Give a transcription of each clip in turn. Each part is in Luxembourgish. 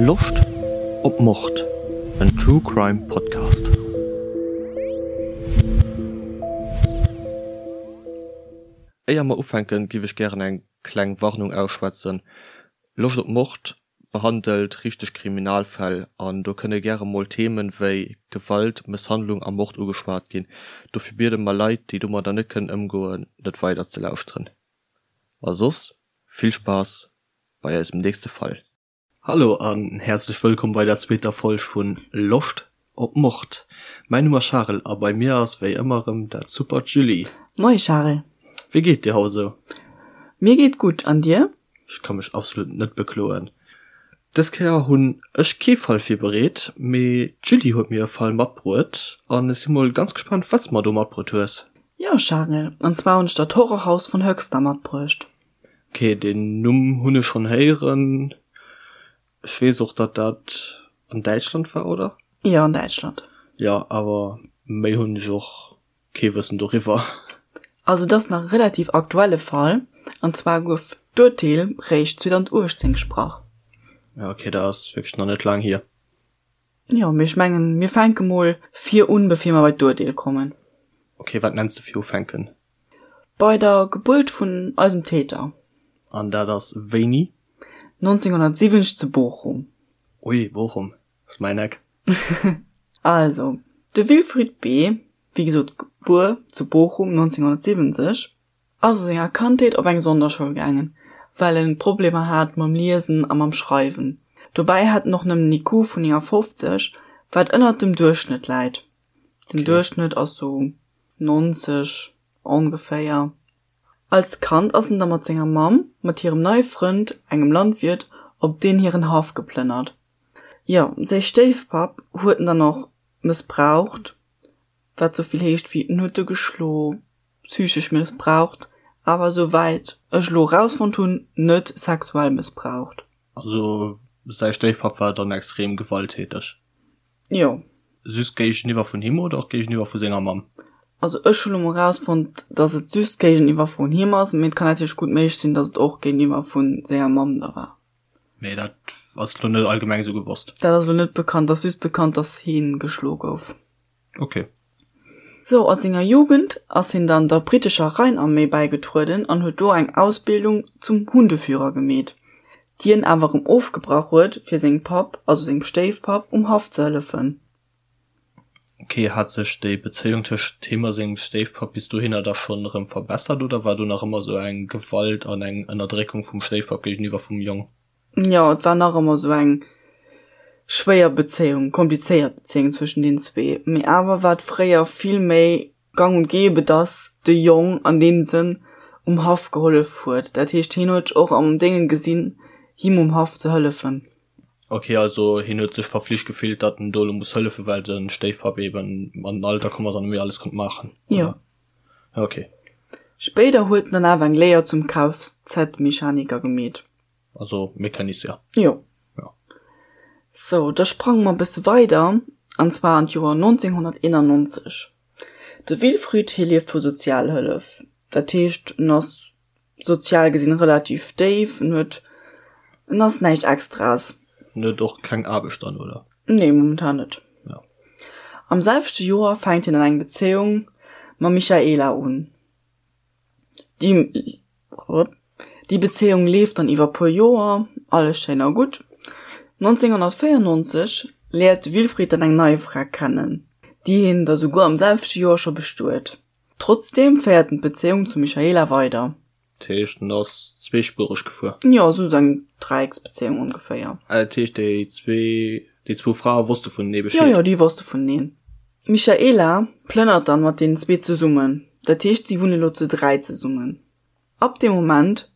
Loscht op Mord? En True Crime Podcast. Éier mer ufänken, giff ech gären eng kleng Warnung ausschwätzen. Loscht op Mord behandelt richteg Kriminalfäll an do kënne gäre mol Themen wéi Gewalt, Mësshandlung a Mord ugeschwat ginn. Dofir biede mer Leit, déi domadder net kënnen ëmgoen, net weider ze lauschteren. A soss vill Spaass bei eisem nächste Fall. Hallo an häerzlech wëllkomm bei der zweeter Folg vun Loscht op Mord. Mäin Numm ass Charel a bei mir ass wéi ëmmer erëm dat supert Julie. Moie Charel. Wéi geet dir haut esou? Mir geet gutt, an dir? Ech ka mech absolut net bekloen. Dës Kéier hunn ech kee Fall virbereet, mee d'Julie huet mir e Fall matbruet an ech si mol ganz gespaant wat s mer do matbruet hues. Jo Charel, an zwar hunn ech der d'Horrorhaus von Höxter matbruecht. Ok, deen Numm hunn ech schonn héieren. Ech weess och datt dat an Däitschland war, oder? Jo, an Däitschland. Jo, awer méi hunn ech och Kee Wëssen doriwwer. Also et ass nach e relativ aktuelle Fall, an zwar gouf d'Urteel réischt 2018 gesprach. Ja ok, dat ass wierklech nach net laang hier. Jo, mee ech mengen mir fänke mol vir un, bevir mer bei d'Urteel kommen. Ok, wat nenns de virufänken? Bei der Gebuert vun eisem Täter. An dat ass wéini? 1970 zu Bochum. Ui, Bochum ass mäin Eck. Also, de Wilfried B. wéi gesot gebuer zu Bochum 1970, ass a senger Kandheet op eng Sonderschoul gaangen, well en Problemer hat mam Liesen a mam Schreiwen. Dobäi hat en och nëmmen en IQ vun 59, wat ënnert dem Duerchschnëtt läit. Den Duerchschnëtt ass sou 90 ongeféier. Als Kand ass en da mat senger Mamm, mat hirem neie Frënd, engem Landwiert, op deen hiren Haff geplënnert. Jo, säi Stéifpapp huet en dann och mëssbraucht, wat sou vill heescht wéi en huet e geschlo, psychesch mëssbraucht, awer sou wäit ech elo erausfonnt hunn, net sexuell mëssbraucht. Also säi Stéifpapp war dann extrem gewalttäteg? Jo. Just géigeniwwer vun him oder och géigeniwwer vu senger Mamm? Also ech hu lo mol erausfonnt, dass et just géigeniwwer vun him ass, mee et kann natierlech gutt méiglech sinn, dass et och géigeniwwer vu senger Mamm da war. Mee dat ass lo net allgemeng esou gewosst. Dat ass lo net bekannt, ass just bekannt, dass hien geschlo gouf. Ok. Sou, a senger Jugend ass hien dann der brittescher Rheinarmee bäigetrueden an huet do eng Ausbildung zum Hundeführer gemeet, déi en awer erëm ofgebrach huet, fir sengem Papp, also sengem Stéifpapp, um Haff ze hëllefen. Ok, hat sech déi Bezéiung tëscht him a sengem Stéifpapp bis dohinner da schonn erëm verbessert oder war do nach ëmmer sou eng Gewalt an eng Ënnerdréckung vum Stéifpapp géigeniwwer vum Jong? Jo, et war nach ëmmer sou eng schwéier Bezéiung, komplizéiert Bezéiung zwëschen deenen zwee. Mee awer war et fréier vill méi gang und gäbe, dass de Jong an deem Sënn um Haff gehollef huet. Dat heescht, hien huet sech och am Déngen gesinn, him um Haff ze hëllefen. Ok, also hien huet sech verflicht gefillt, datt en do elo muss hëllefen, well de Stéifpapp eben an den Alter komm ass an net méi alles konnt maachen, Jo. oder? Ja, ok. Spéider huet en dann awer eng Léier zum Kfz-Mechaniker gemeet. Also Mecanicien. Jo. Ja. Sou, da sprange mer e bësse weider, an zwar an d'Joer 1991. De Wilfried, hie lieft vu Sozialhëllef. Dat heescht, en ass sozial gesinn relativ déif, en huet, en ass näischt Extraes. En huet och keng Aarbecht dann, oder? Nee, momentan net. Ja. Am selwechte Joer fänkt hien dann eng Bezéiung mam Michaela un. Déi, déi Bezéiung leeft dann iwwer puer Joer, alles schéin a gutt. 1994 léiert de Wilfried dann eng nei Fra kennen, déi hien da souguer am selwechte Joer scho bestuet. Trotzdeem féiert en d'Bezéiung zum Michaela weider. Dat heescht, en ass zweespuereg gefuer? Jo, esou eng Dräiecksbezéiung ongeféier. Ah, dat heescht, déi zwee, déi zwou Frae wosste vunenee Bescheed? Jo, jo, déi wosste vuneneen. D'Michaela plënnert dann mat deenen zwee zesummen, dat heescht, si wunne lo zu 3 zesummen. Ab deem Moment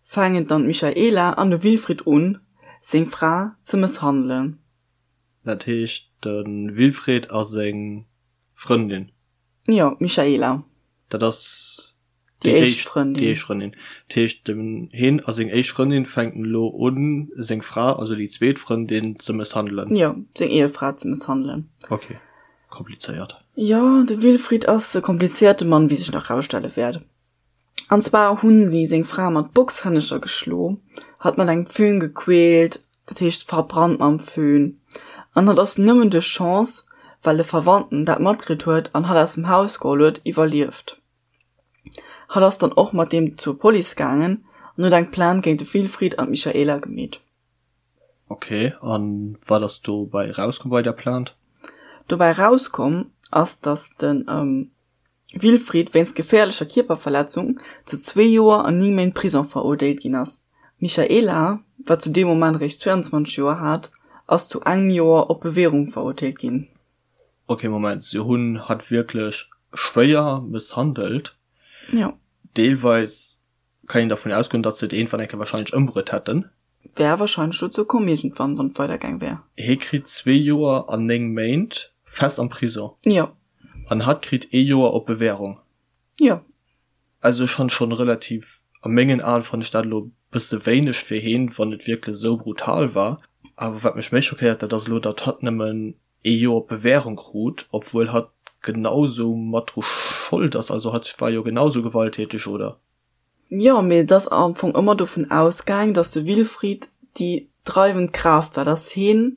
faangen dann d'Michaela an de Wilfried un, seng Fra ze mësshandelen. Dat heescht, de Wilfried a seng Frëndin? Jo, d'Michaela. Dat ass déi éischt Frëndin. Déi éischt Frëndin. Dat heescht, den hien a seng éischt Frëndin fänken elo un, seng Fra, also déi zweet Frëndin, ze mësshandelen. Jo, seng Ehefra ze mësshandelen. Ok, komplizéiert. Jo, de Wilfried ass e komplizéierte Mann, wéi sech nach rausstelle wäert. An zwar hunn si seng Fra mat Boxhännecher geschlo, hatt mat engem Föhn gequält. Dat heescht verbrannt mam Föhn. An hatt ass nëmmen duerch Chance, well e Verwandten dat matkritt huet an hatt aus dem Haus geholl huet, iwwerlieft. Hatt ass dann och mat deem zur Police gaangen an huet eng Plainte géint de Wilfried an d'Michaela gemeet. Ok, an wat ass dobäi erauskomm bei der Plainte? Dobäi erauskomm ass, datt de Wilfried wéinst geféierlecher Kierperverletzung zu zwee Joer an 9 Méint Prisong verurteelt ginn ass. D'Michaela, wat zu deem Moment eréischt 22 Joer hat, ass zu engem Joer op Bewährung verurteelt ginn. Ok, Moment, se hunn hatt wierklech schwéier mësshandelt? Jo. Deelweis kann een dervun ausgoen, datt se et iergendwann eng Kéier wahrscheinlech ëmbruet hätten. Wär wahrscheinlech dozou komm iergendwann, wann et weider gaang wär. Hie kritt zwee Joer an 9 Méint fest am Prison. Jo. An hatt kritt ee Joer op Bewährung. Jo. Also ech fann schon relativ, a mengen Aen fann ech dat elo bësse wéineg fir heen, wann et wierklech esou brutal war. Awer wat mech méi schockéiert, dat ass elo, datt hatt nëmmen ee Joer op Bewährung krut, obwuel hatt genau sou mat dru Schold ass. Also hatt war jo genau sou gewalttäteg, oder? Jo, mee et ass am Fong ëmmer dovun ausgaang, datt de Wilfried déi dreiwend Kraaft war, datt heen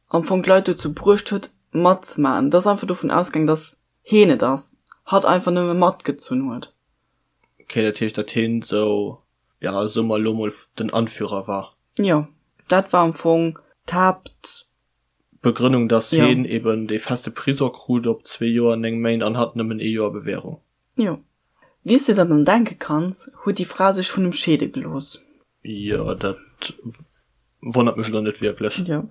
am Fong d'Leit dozou bruecht huet matzemaachen. Et ass einfach dovun ausgaang, datt heen et ass, hatt einfach nëmme matgezunn huet. Ok, dat heescht, datt heen sou, ja, soe mer elo mol, den Anführer war? Jo, dat war am Fong d'Haapt. Begrënnung, datt heen eben dee feste Prisong krut op zwee Joer an 9 Méint an hatt nëmmen ee Joer Bewährung. Jo. Wéi s de der dann denke kanns, huet déi Fra sech vun em scheede gelooss. Jo, dat wonnert mech elo net wierklech. Jo.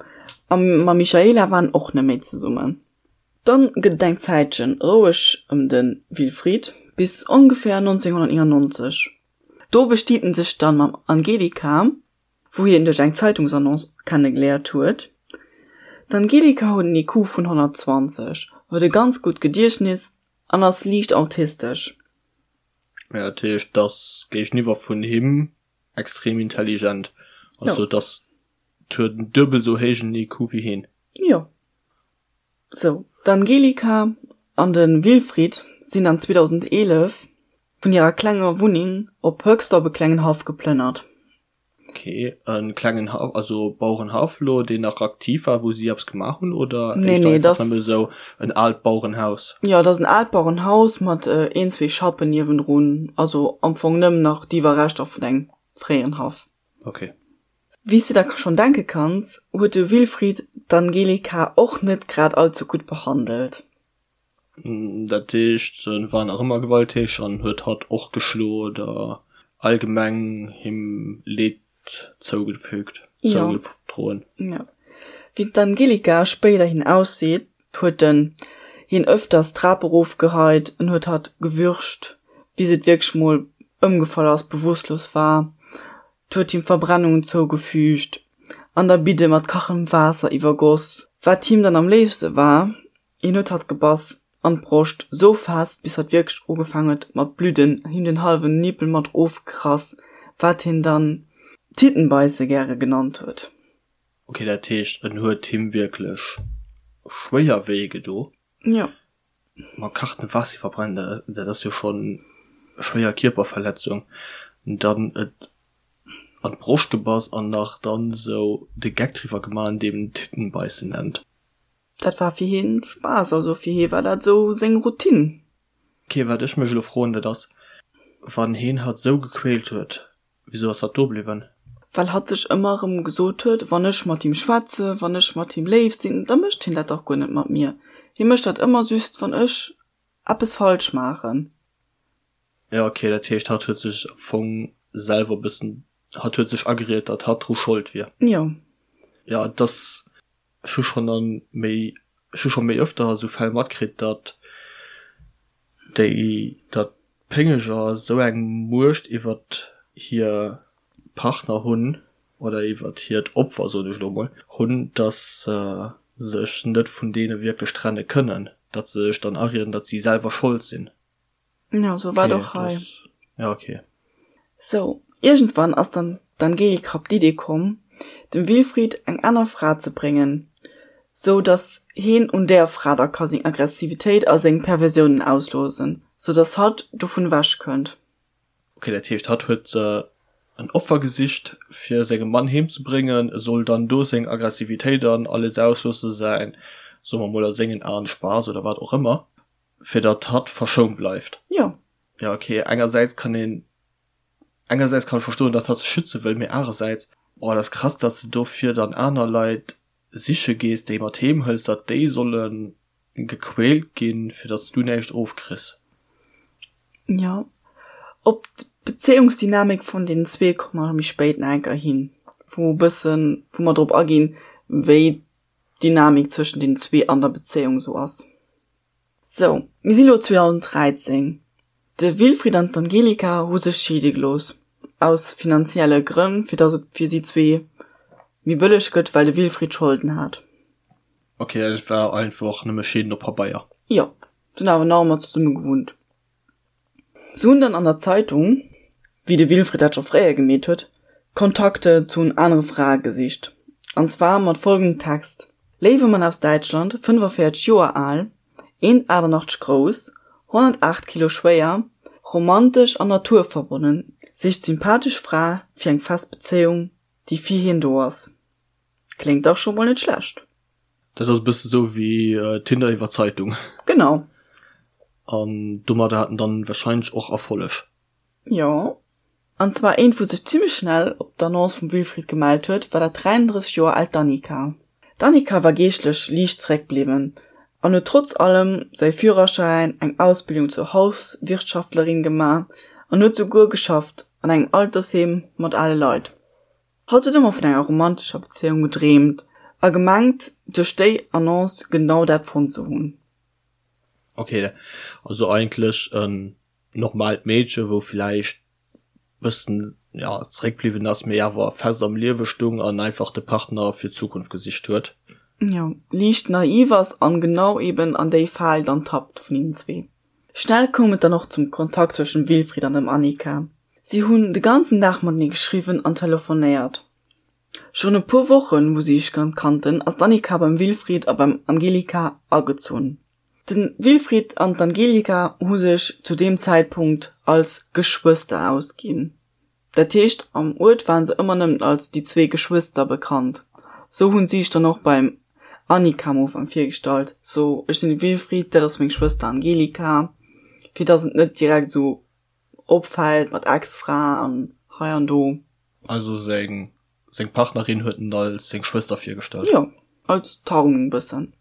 A mam Michaela war en och net méi zesummen. Dann gëtt et eng Zäitchen roueg ëm de Wilfried, bis ongeféier 1999. Do bestiet en sech dann mam Angelika, wou hien duerch eng Zeitungsannonce kennegeléiert huet. D'Angelika huet en IQ vun 120, huet e ganz gutt Gediechtnis an ass liicht autistesch. Ja, dat heescht, d'ass géigeniwwer vun him extrem intelligent. Also d'ass, huet en duebel esou héijen IQ wéi hien. Jo. Sou, d'Angelika an de Wilfried sinn dann 2011 vun hirer klenger Wunneng op Höxter op e klengen Haff geplënnert. Ok, e klengen Haff, also Bauerenhaff elo, deen nach aktiv war, wou si eppes gemaach hunn, oder Nee, éischter nee, einfach nëmme esou en aalt Bauerenhaus? Jo, dat ass en aalt Bauerenhaus mat een, zwee Schappen niewendrun, also am Fong nëmmen nach d'Iwwerreschter vun engem fréieren Haff. Ok. Wéi s de der schonn denke kanns, huet de Wilfried d'Angelika och net grad allze gutt behandelt. Dat heescht, en war nach ëmmer gewalttäteg an huet hatt och geschloen oder allgemeng him Leed zougefügt, zougedroen. Jo. Wéi d'Angelika spéiderhin ausseet, huet en hien ëfters d'Trap erofgeheit, en huet hatt gewürgt, bis et wierklech mol ëmgefall ass, bewusstlos war. 't huet him Verbrennungen zougefügt an der Bidde mat kachendem Waasser iwwergoss. Wat him dann am léifste war, Hien huet hatt gebass, an d'Broscht, sou fest, bis hatt wierklech ugefaang huet mat bludden, him den hallwen Nippel mat ofgerass, wat hien dann Tittenbeisse gäre genannt huet. Ok, dat heescht en huet him wierklech schwéier wéi gedo. Jo. Mat kachendem Waasser iwwerbrennen, dat ass jo schonn schwéier Kierperverletzung. Dann et an d'Broscht gebass an nach dann sou de Geck driwwer gemaach, indem en Tittenbeissen nennt. Dat war fir hien Spaass, also fir hie war dat esou seng Routine. Ok, wat ech mech elo froen, dat ass, wann heen hatt sou gequält huet, wisou ass hatt do bliwwen? Well hatt sech ëmmer erëm gesot huet, wann ech mat him schwätze, wann ech mat him léif sinn, da mécht hien dat dach guer net mat mir. Hie mécht dat ëmmer just, wann ech eppes falsch maachen. Jo, ok, dat heescht, hatt huet sech am Fong selwer e bëssen, hatt huet sech ageriet, datt hatt dru Schold wier. Jo. Jo, et ass Ech hu schonn a méi, ech hu scho méi öfter esou Fäll matkritt, datt déi, datt d'Péngeger esou eng Muecht iwwert hir Partner hunn oder iwwert hiert Opfer, soen ech elo emol, hunn, datt se sech net vun deene wierklech trenne kënnen, datt se sech dann arieden, datt si selwer Schold sinn. Ja, sou war et och hei. Ja, okay. Sou, iergendwann ass dann d'Angelika op d'Idee komm, dem Wilfried eng aner Fra ze bréngen, sou dass heen un där Fra da ka seng Aggressivitéit a seng Perversiounen ausloosen, sou dass hatt dovun ewech kënnt. Okay, dat heescht, hatt huet se. En Offer gesicht fir sengem Mann heem ze bréngen, e soll dann do seng Aggressivitéit an alles ausloossen, säin, soe mer mol a sengen Aen, Spaass oder wat och ëmmer, fir datt hatt verschount bleift. Jo. Jo ok, engersäits kann een, engersäits kann ech verstoen, datt hatt sech schütze wëll, mee anerersäits, boah, dat ass krass, datt s de dofir dann aner Leit siche gees, déi mat heem hëls, datt déi solle gequält ginn, fir datt s du näischt ofkriss. Jo, op d'Bezéiungsdynamik vun deenen zwee komme mer méi spéit nach eng Kéier hin, wou e bëssen, wou mer drop aginn, wéi d'Dynamik zwëschen deenen zwee an der Bezéiung esou ass. Sou, mir si lo 2013. De Wilfried an d'Angelika hu sech scheede gelooss, aus finanzielle Grënn, fir datt et fir si zwee méi bëlleg gëtt, well de Wilfried Scholden hat. Ok, et war einfach nëmme Scheeden op Pabeier. Jo, se hunn awer nach ëmmer zesumme gewunnt. Se hunn dann an der Zeitung, wéi de Wilfried dat scho fréier gemeet huet, Kontakte zu anere Frae gesicht. An zwar mat folgendem Text, Léiwe Mann aus Däitschland, 45 Joer al, 1,88 grouss, 108 Kilo schwéier, romantesch an naturverbonnen, sicht sympathesch Fra fir eng fest Bezéiung, déi fir hien do ass. Kléngt dach scho mol net schlecht. Dat ass e bësse sou wéi Tinder iwwer Zeitung. Genau. An domadder hat en dann wahrscheinlech och Erfolleg. Jo. An zwar eent wou sech zimlech schnell op d'Annonce vum Wilfried gemellt huet, war dat 33 Joer aalt Danica. D'Danica war geeschtlech liicht zeréckbliwwen an huet trotz allem säi Führerschäin, eng Ausbildung zur Hauswirtschaftlerin gemaach an huet souguer geschafft an engem Altersheem mat ale Leit. Hatt huet ëmmer vun enger romantescher Bezéiung gedreemt a gemengt, duerch déi Annonce genau dat fonnt ze hunn. Ok, also eigentlech en normaalt Meedche wou villäicht bëssen, ja, zeréckbliwwen ass, mee awer fest am Liewe stung an einfach de Partner fir d'Zukunft gesicht huet. Jo, liicht naiv ass an genau eben an déi Fal dann tappt vun hinnen zwee. Schnell koum et dann och zum Kontakt zwëschen dem Wilfried an dem Annika. Si hunn de ganzen Dag matenee geschriwwen an telefonéiert. Schonn e puer Wochen, wou si sech kannten, ass d'Annika beim Wilfried a beim Angelika agezunn. De Wilfried an d'Angelika hu sech zu deem Zäitpunkt als Geschwëster ausginn. Dat heescht, am Uert waren se ëmmer nëmmen als déi zwee Geschwëster bekannt. Sou hunn si sech dann och beim Annika am Ufank virgestallt, sou, ech sinn de Wilfried, dat ass meng Schwëster Angelika, fir dass et net direkt sou opfält mat Ex-Fra an hei an do. Also seng seng Partnerin huet en als seng Schwëster virgestallt? Jo, als Tarnung bëssen.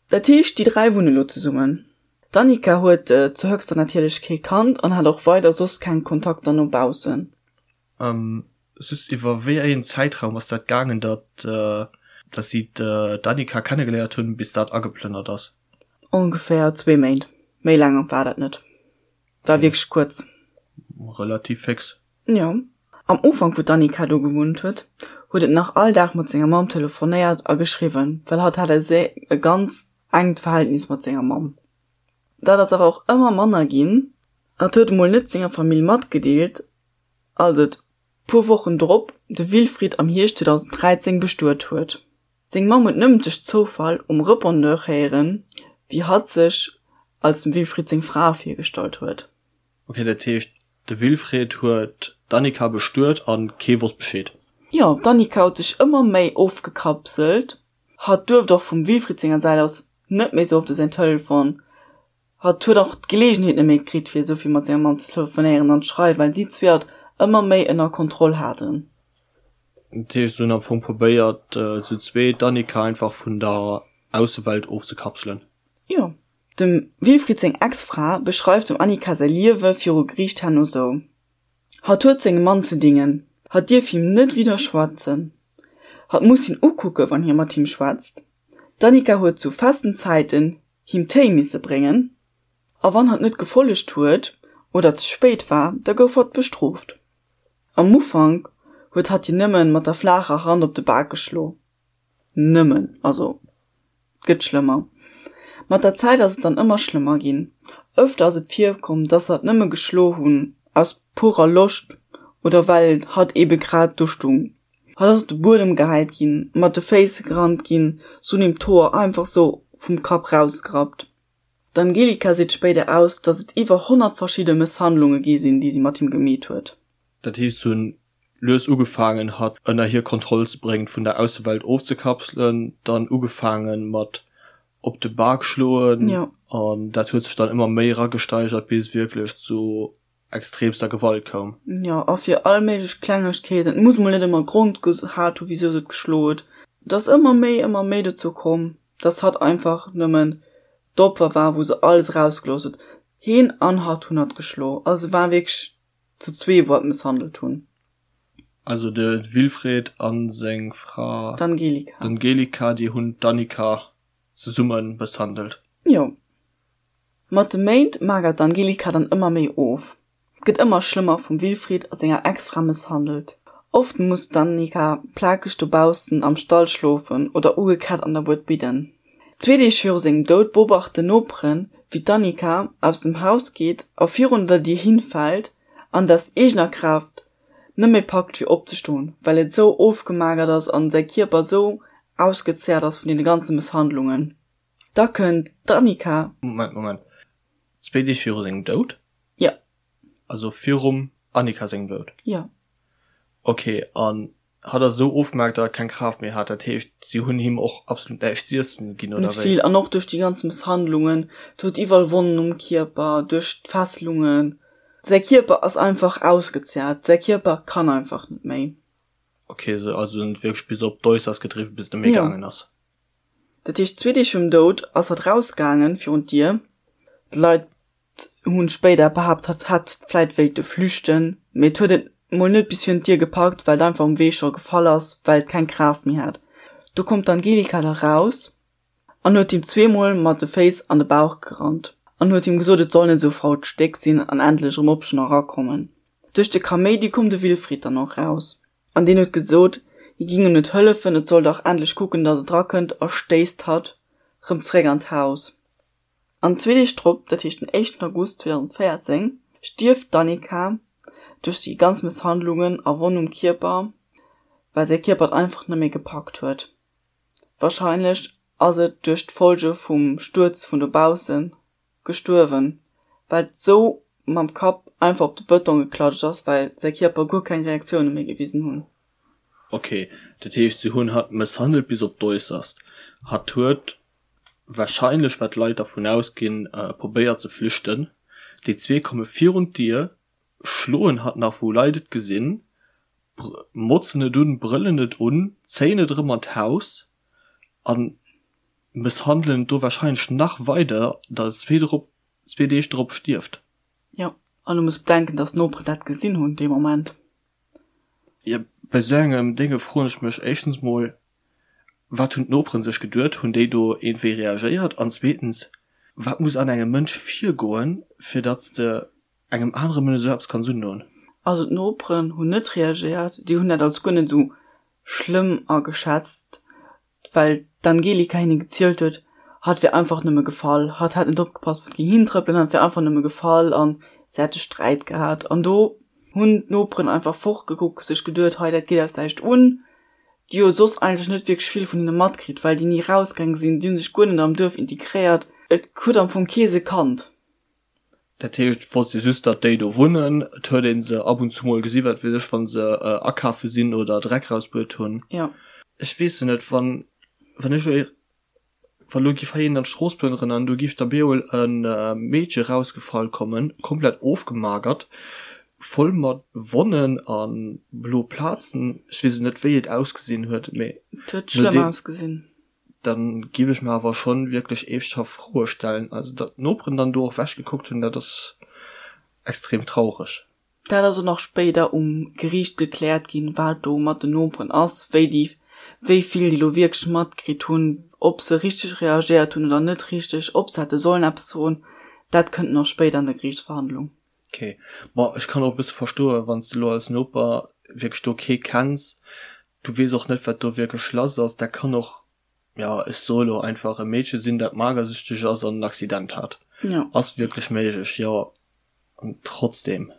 Dat heescht, déi 3 wunne lo zesummen. D'Annika huet zu Höxter natierlech kee Kand an hat och weider soss keng Kontakter no baussen. Just, iwwer wéi een Zäitraum ass dat gaangen, datt datt si d'Annika kennegeléiert hunn, bis dat ageplënnert ass? Ongeféier zwee Méint. Méi laang war dat net. War wierklech kuerz. Relativ féx. Jo. Am Ufank wou d'Annika do gewunnt huet, huet et nach all Dag mat senger Mamm telefonéiert a geschriwwen, well hatt hat e e ganz enkt Verhältnis mat senger Mamm. Dat ass awer och ëmmer manner ginn. Hatt huet emol net senger Famill matgedeelt, als et puer Wochen drop de Wilfried am Hierscht 2013 bestuet huet. Seng Mamm huet nëmmen duerch Zoufall um Repondeur héieren, wéi hatt sech als dem Wilfried seng Fra virgestallt huet. Ok, dat heescht de Wilfried huet d'Annika bestuet an kee wosst Bescheed? Jo, d'Annika huet sech ëmmer méi ofgekapselt. Hatt duerft och vum Wilfried senger Säit aus net méi sou oft u säin Telefon. Hatt huet och d'Geleegenheet net méi kritt fir esou vill mat senger Mamm ze telefonéieren an ze schreiwen, well si zwee hatt ëmmer méi ënner Kontroll haten. Dat heescht se hunn am Fong probéiert zu zwee d'Annika einfach vun der Aussewelt ofzekapselen? Jo. Dem Wilfried seng Ex-Fra beschreift dem Annika säi Liewe viru Geriicht herno sou, Hatt huet sengem Mann ze dingen, hatt dierf him net widderschwätzen, hatt muss hien ukucke wann hie mat him schwätzt. D'Annika huet zu festen Zäiten him Téi misse bréngen, a wann hatt net gefollegt huet oder ze spéit war, da gouf hatt bestrooft. Am Ufank huet hatt hien nëmmen mat der flaacher Hand op de Bak geschlo. Nëmmen, also et gëtt schlëmmer. Mat der Zäit ass et dann ëmmer schlëmmer ginn. Öfter ass et virkomm, dass hatt nëmme geschlo hunn aus purer Loscht oder well hatt ebe grad do stung. Hatt ass op de Buedem gehäit ginn, mat de Féiss gerannt ginn, se hunn him d'Hoer einfach sou vum Kapp rausgerappt. D'Angelika seet spéider aus, dass et iwwer 100 verschidde Mësshandlunge gi sinn, déi si mat him gemeet huet. Dat heescht, se hunn. Lues ugefaangen hatt ënner hir Kontroll ze bréngen, vun der Aussewelt ofzekapselen, dann ugefaangen mat op de Bak schloen an dat huet sech dann ëmmer méi eragesteigert bis et wierklech zu extremster Gewalt koum. Jo, a fir all méiglech Klengegkeeten, et muss mol net ëmmer Grond gehat hu wisou se et geschloen huet, et ass ëmmer méi, ëmmer méi dozou komm, dass hatt einfach nëmmen d'Opfer war, wou se alles erausgelooss huet. Heen an hatt hunn hatt geschloen, also se waren wierklech zu zwee wou hatt mësshandelt hunn. Also de Wilfried a seng Fra d'Angelika, d'Angelika, déi hunn d'Annika zesumme mësshandelt. Jo. Mat de Méint magert d'Angelika dann ëmmer méi of, gëtt ëmmer schlëmmer vum Wilfried a senger Ex-Fra mësshandelt. Oft muss d'Annika plakeg dobaussen am Stall schlofen oder ugekett an der Bued bidden. Zwee Deeg viru sengem Doud beobachten Noperen, wéi d'Annika aus dem Haus geet a virun der Dier hinfält an et aus eegener Kraaft net méi packt fir opzestoen, well et esou ofgemagert ass an säi Kierper esou ausgezehrt ass vun deene ganze Mësshandlungen. Da kënnt d'Annika. Moment, Moment, zwee Deeg viru sengem Doud? Jo. Also virum Annika sengem Doud? Jo. Ok, an hatt ass esou ofgemagert, datt e keng Kraaft méi hat, dat heescht, si hunn him och absolut näischt z'iessen ginn, oder wéi? Net vill, an och duerch déi ganz Mësshandlungen, et huet iwwerall Wonnen um Kierper, duerch d'Fesselungen, Säi Kierper ass einfach ausgezehrt, säi Kierper kann einfach net méi. Ok, also en huet wierklech bis op d'Äusserst gedriwwen, bis et net méi gaangen ass. Dat heescht, zwee Deeg virum Doud ass hatt rausgaangen virun d'Dier. D'Leit hunn spéider behaapt, hatt hätt vläit wéilte flüchten, mee et huet et mol net bis virun d'Dier gepackt, well et einfach um Wee scho gefall ass, well et keng Kraaft méi hat. Do koum d'Angelika da raus an huet him zweemol mat de Féiss an de Bauch gerannt an huet him gesot, et soll net esou fault Stéck sinn an endlech erëm opstoen a erakommen. Duerch de Kaméidi koum de Wilfried dann och raus an deen huet gesot, hie ging em net hëllefen, et soll dach endlech kucken, datt et erakënnt a stéisst hatt rëm zeréck an d'Haus. An zwee Deeg drop, dat heescht den éischten August 2014, stierft d'Annika duerch déi ganz Mësshandlungen a Wonn um Kierper, well säi Kierper et einfach net méi gepackt huet. Wahrscheinlech ass et duerch d'Folge vum Stuerz vun dobaussen gestuerwen, well et sou mam Kapp einfach op de Bëtong geklatscht ass, well säi Kierper guer keng Reaktioune méi gewisen hunn. Ok, dat heescht se hunn hatt mësshandelt bis op d'Äusserst. Hatt huet wahrscheinlech, wat d'Leit dervun ausginn, probéiert ze flüchten. Déi zwee komme virun d'Dier, schloen hatt nach wou Leit et gesinn, motzen et un, brëllen et un, zéien et erëm an d'Haus a mësshandelen et do wahrscheinlech nach weider, datt et zwee drop, zwee Deeg drop stierft. Jo, an du muss bedenken, datt d'Noperen dat gesinn hunn dee Moment. Jo, bei esou engem Dénge froen ech mech éischtens mol, wat hunn d'Noperen sech geduet, hunn déi do iergendwéi reagéiert? An zweetens, wat muss an engem Mënsch virgoen, fir datt s de engem anere Mënsch esou eppes kanns undoen. Also d'Noperen hunn net reagéiert, déi hunn dat als guer net esou schlëmm ageschätzt, well d'Angelika hinne gezielt huet, hatt wier einfach nëmme gefall, hatt hätt net opgepasst, wou et géing hintrëppelen, hatt wier einfach nëmme gefall an se hätte Sträit gehat. An do hunn d'Noperen einfach fortgekuckt, sech geduet, hei dat geet eis näischt un, déi jo soss eigentlech net wierklech vill vun hinne matkritt, well déi ni rausgaange sinn, déi hu sech guer net am Duerf integréiert, et huet am Fong kee se kannt. Dat heescht, et wosst ee just, datt déi do wunnen. Et huet ee se ab und zu mol gesi, wat weess ech, wa se akafe sinn oder Dreck rausbruet hunn. Jo. Ech weess jo net, wann, wann ech elo, wa lo giff hei een an d'Strooss plënneren an do giff da beemol e Meedche rausgefall kommen, komplett ofgemagert, voll mat Wonnen a blo Plazen, ech weess elo net, wéi et ausgesinn huet, mee Et huet schlëmm ausgesinn. dann giff ech mer awer schon wierklech eeschthaft Froe stellen. Also datt d'Noperen dann do och wech gekuckt hunn, dat ass extrem traureg. Dat ass och nach spéider um Geriicht gekläert ginn, wat do mat den Noperen ass, wéi déi, wéi vill déi lo wierklech matkritt hunn, ob se richteg reagéiert hunn oder net richteg, ob se hätte sollen eppes soen, dat kënnt nach spéider an der Geriichtsverhandlung. Ok, bon ech kann och e bësse verstoen, wann s de lo als Noper wierklech do kee kenns, du weess och net wat do wierklech lass ass, dat kann och, jo ech soe lo einfach e Meedche sinn dat magersüchteg ass an en Accident hat, Jo. ass wierklech méiglech, jo, an trotzdem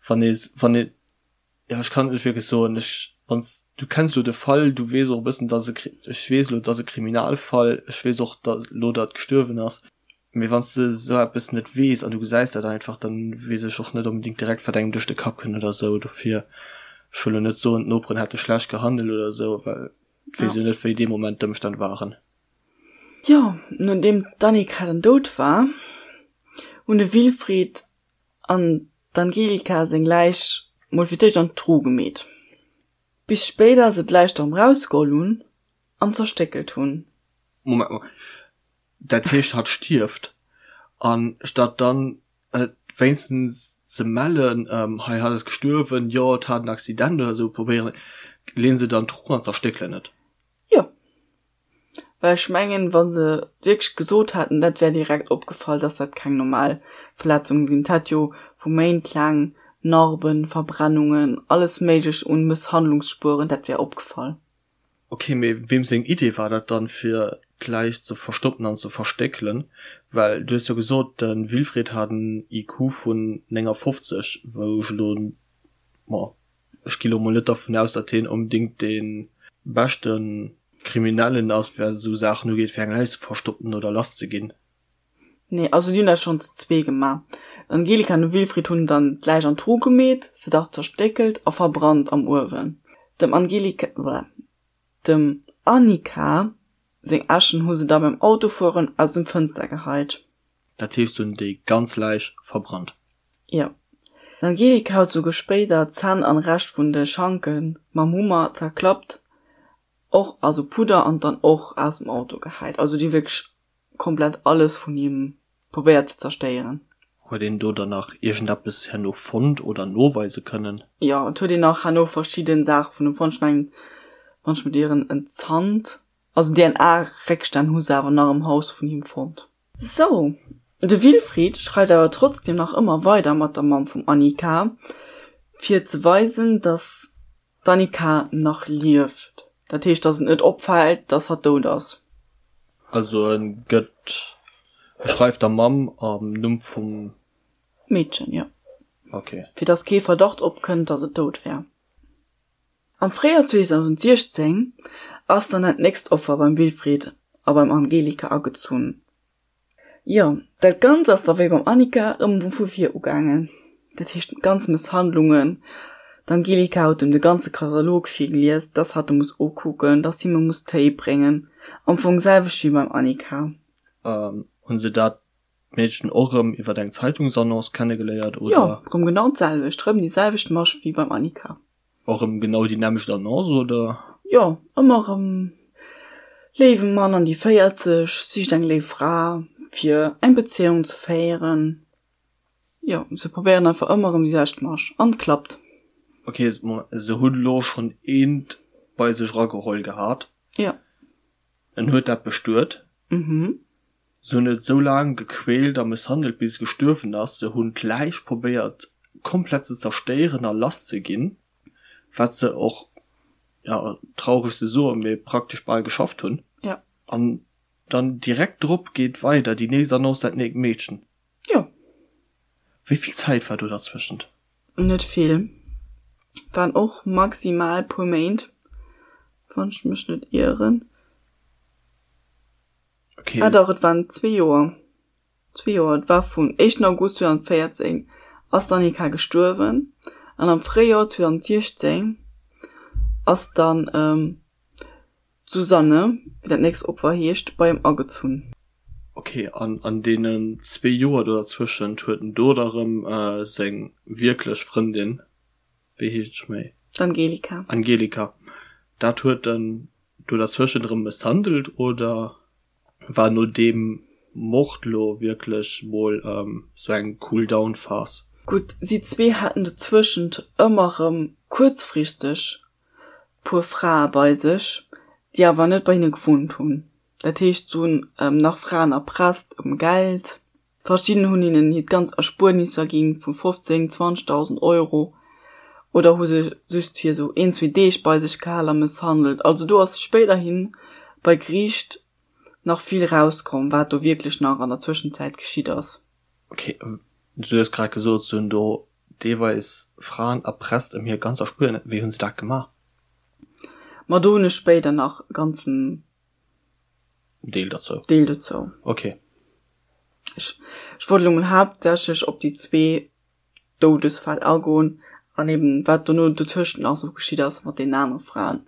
wann ee wann ee Jo, ech kann et net wierklech soen. Ech, wann s, du kenns elo de Fall, du weess och e bëssen, dass e, ech weess elo, et ass e Kriminalfall, ech weess och, datt elo datt gestuerwen ass, mee wann s de esou eppes net weess an du gesäis dat einfach, dann weess ech och net onbedéngt direkt, wat engem duerch de Kapp kënnt oder esou. Dofir. Ech wëll lo net soen, d'Noperen hätte schlecht gehandelt oder esou, well et weess jo net, wéi dee Moment d'Ëmstänn waren. Jo, nodeem d'Annika dann dout war, hunn de Wilfried an d'Angelika seng Läich mol fir d'éischt an d'Tru gemeet, bis spéider se d'Läich erëm rausgeholl hunn an zerstéckelt hunn. Moment mol, dat heescht hatt stierft an statt dann et wéinstens ze mellen, hei hatt ass gestuerwen, jo et hat en Accident oder esou, probéieren, leen se dann d'Tru an zerstéckelen et? Jo. Well ech mengen, wa se wierklech gesot hätten, dat wär direkt opgefall, dass dat keng normal Verletzungen sinn. Et hätt jo vu Méint laang Narben, Verbrennungen, alles Méiglecht un Mësshandlungsspueren, dat wär opgefall. Ok, mee weem seng Idee war dat dann, fir d'Läich ze verstoppen an ze verstéckelen? Well du hues jo gesot, de Wilfried hat en IQ vun 59, wou ech elo, ma Ech gi lo mol net dervun aus, datt hien onbedéngt dee beschte Kriminellen ass, wat esou Saachen ugeet, fir eng Läich ze verstoppen oder lass ze ginn. Nee, also déi hunn dat schonn zu zwee gemaach. D'Angelika an de Wilfried hunn dann d'Läich an d'Tru gemeet, se dach zerstéckelt a verbrannt am Uewen. Dem Angelika, dem Annika seng Äschen hu se da beim Autofueren aus dem Fënster geheit. Dat heescht, se hunn déi ganz Läich verbrannt? Jo. D'Angelika huet souguer spéider d'Zänn an Rescht vun de Schanke mam Hummer zerklappt, och also Pudder, an dann och aus dem Auto gehäit. Also déi hu wierklech komplett alles vun him probéiert ze zerstéieren. Huet een do dann nach iergendeppes herno fonnt oder noweise kënnen? Jo, et huet een nach herno verschidden Saache vun him fonnt. Ech mengen, wann ech mech ieren, en Zant. Also DNA-Réckstänn hu se awer nach am Haus vun him fonnt. Sou, de Wilfried schreift awer trotzdem nach ëmmer weider mat der Mamm vum Annika, fir ze weisen, dass d'Annika nach lieft. Dat heescht, dass et net opfält, dass hatt dout ass. Also e gëtt, e schreift der Mamm am Numm vum. Meedchen, jo. Ok. Fir dass kee Verdacht opkënnt, dass et dout wär. Am Fréijoer 2016 ass dann dat nächst Opfer beim Wilfried a beim Angelika agezunn. Jo, dat Ganzt ass da wéi beim Annika erëm vu vir ugaangen. Dat heescht ganz Mësshandlungen. D'Angelika huet em de ganze Katalog virgelies, dass hatt e muss ukucken, dass him e muss Téi bréngen. Am Fong selwecht wéi beim Annika. Hunn se dat D'Meedchen och rëm iwwert eng Zeitungsannonce kennegeléiert, oder? Jo, rëm genau d'selwecht, rëm déi selwecht Masch wéi beim Annika. Och rëm genau déi nämmlecht Annonce, oder? Jo, ëmmer rëm léiwe Mann an déi 40, sicht eng léif Fra fir eng Bezéiung ze féieren. Jo, se probéieren einfach ëmmer rëm déi selwecht Masch an et klappt. Ok, se hunn elo schonn eent bei sech erageholl gehat. Jo. En huet dat bestuet. Mhm. Se hunn et sou laang gequält a mësshandelt bis et gestuerwen ass. Se hunn d'Läich probéiert komplett ze zerstéieren a lass ze ginn, wat se och, jo, traureg ze soen, mee praktesch bal geschafft hunn. Jo. An dann direkt drop geet weider déi nächst Annonce, dat neekt Meedchen. Jo. Wéi vill Zäit war do derzwëschent? Net vill. Waren och maximal puer Méint, wann ech mech net ieren. Okay. Ah dach, et waren zwee Joer. Zwee Joer. Et war vun éischten August 2014 ass d'Annika gestuerwen an am Fréijoer 2016 ass dann d'Susanne, wéi dat nächst Opfer heescht, bei em agezunn. Okay, an an deenen zwee Joer do derzwëschent huet en do da rëm seng wierklech Frëndin, wéi heescht ech méi? D'Angelika. Angelika. Dat huet en do derzwëschent erëm mësshandelt oder war no deem Mord lo wierklech mol sou eng Cool-Down Phase? Gutt, si zwee haten dozwëschent ëmmer rëm kuerzfristeg puer Frae bei sech, déi awer net bei hinne gewunnt hunn. Dat heescht, se hunn nach Fraen erpresst ëm Geld. Verschidden hunn hinnen hiert ganz Erspuernisser ginn, vu 15, 20.000 Euro, oder hu se just fir esou een, zwee Deeg bei sech gehal a mësshandelt. Also do ass spéiderhi bei Geriicht nach vill rauskomm, wat do wierklech nach an der Zwëschenzäit geschitt ass. Ok, du hues grad gesot, se hunn do deelweis Fraen erpresst ëm hir ganz Erspuernis. Wéi hunn se dat gemaach? Ma do hunn ech spéider nach e ganzen Deel dozou. Deel dozou. Ok. Ech, ech wollt elo mol haaptsächlech op déi zwee Doudesfäll agoen. An eben wat dono dotëscht nach esou geschitt ass mat deenen anere Fraen.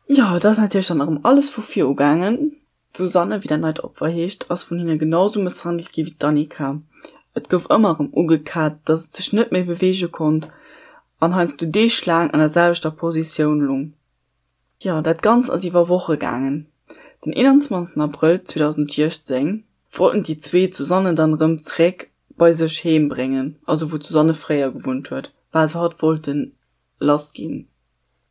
Jo, et ass natierlech dann erëm alles vu vir ugaangen. D'Susanne, wéi dat neit Opfer heescht, ass vun hinne genau sou mësshandelt gi wéi d'Annika. Et gouf ëmmer erëm ugekat, dass et sech net méi beweege konnt an heiansdo deeglaang an der selwechter Positioun lung. Jo, dat Ganzt ass iwwer Woche gaangen. Den 21 Abrëll 2016 wollten déi zwee d'Susanne dann erëm zeréck bei sech heem bréngen, also wou d'Susanne fréier gewunnt huet, well se hatt wollte lass ginn.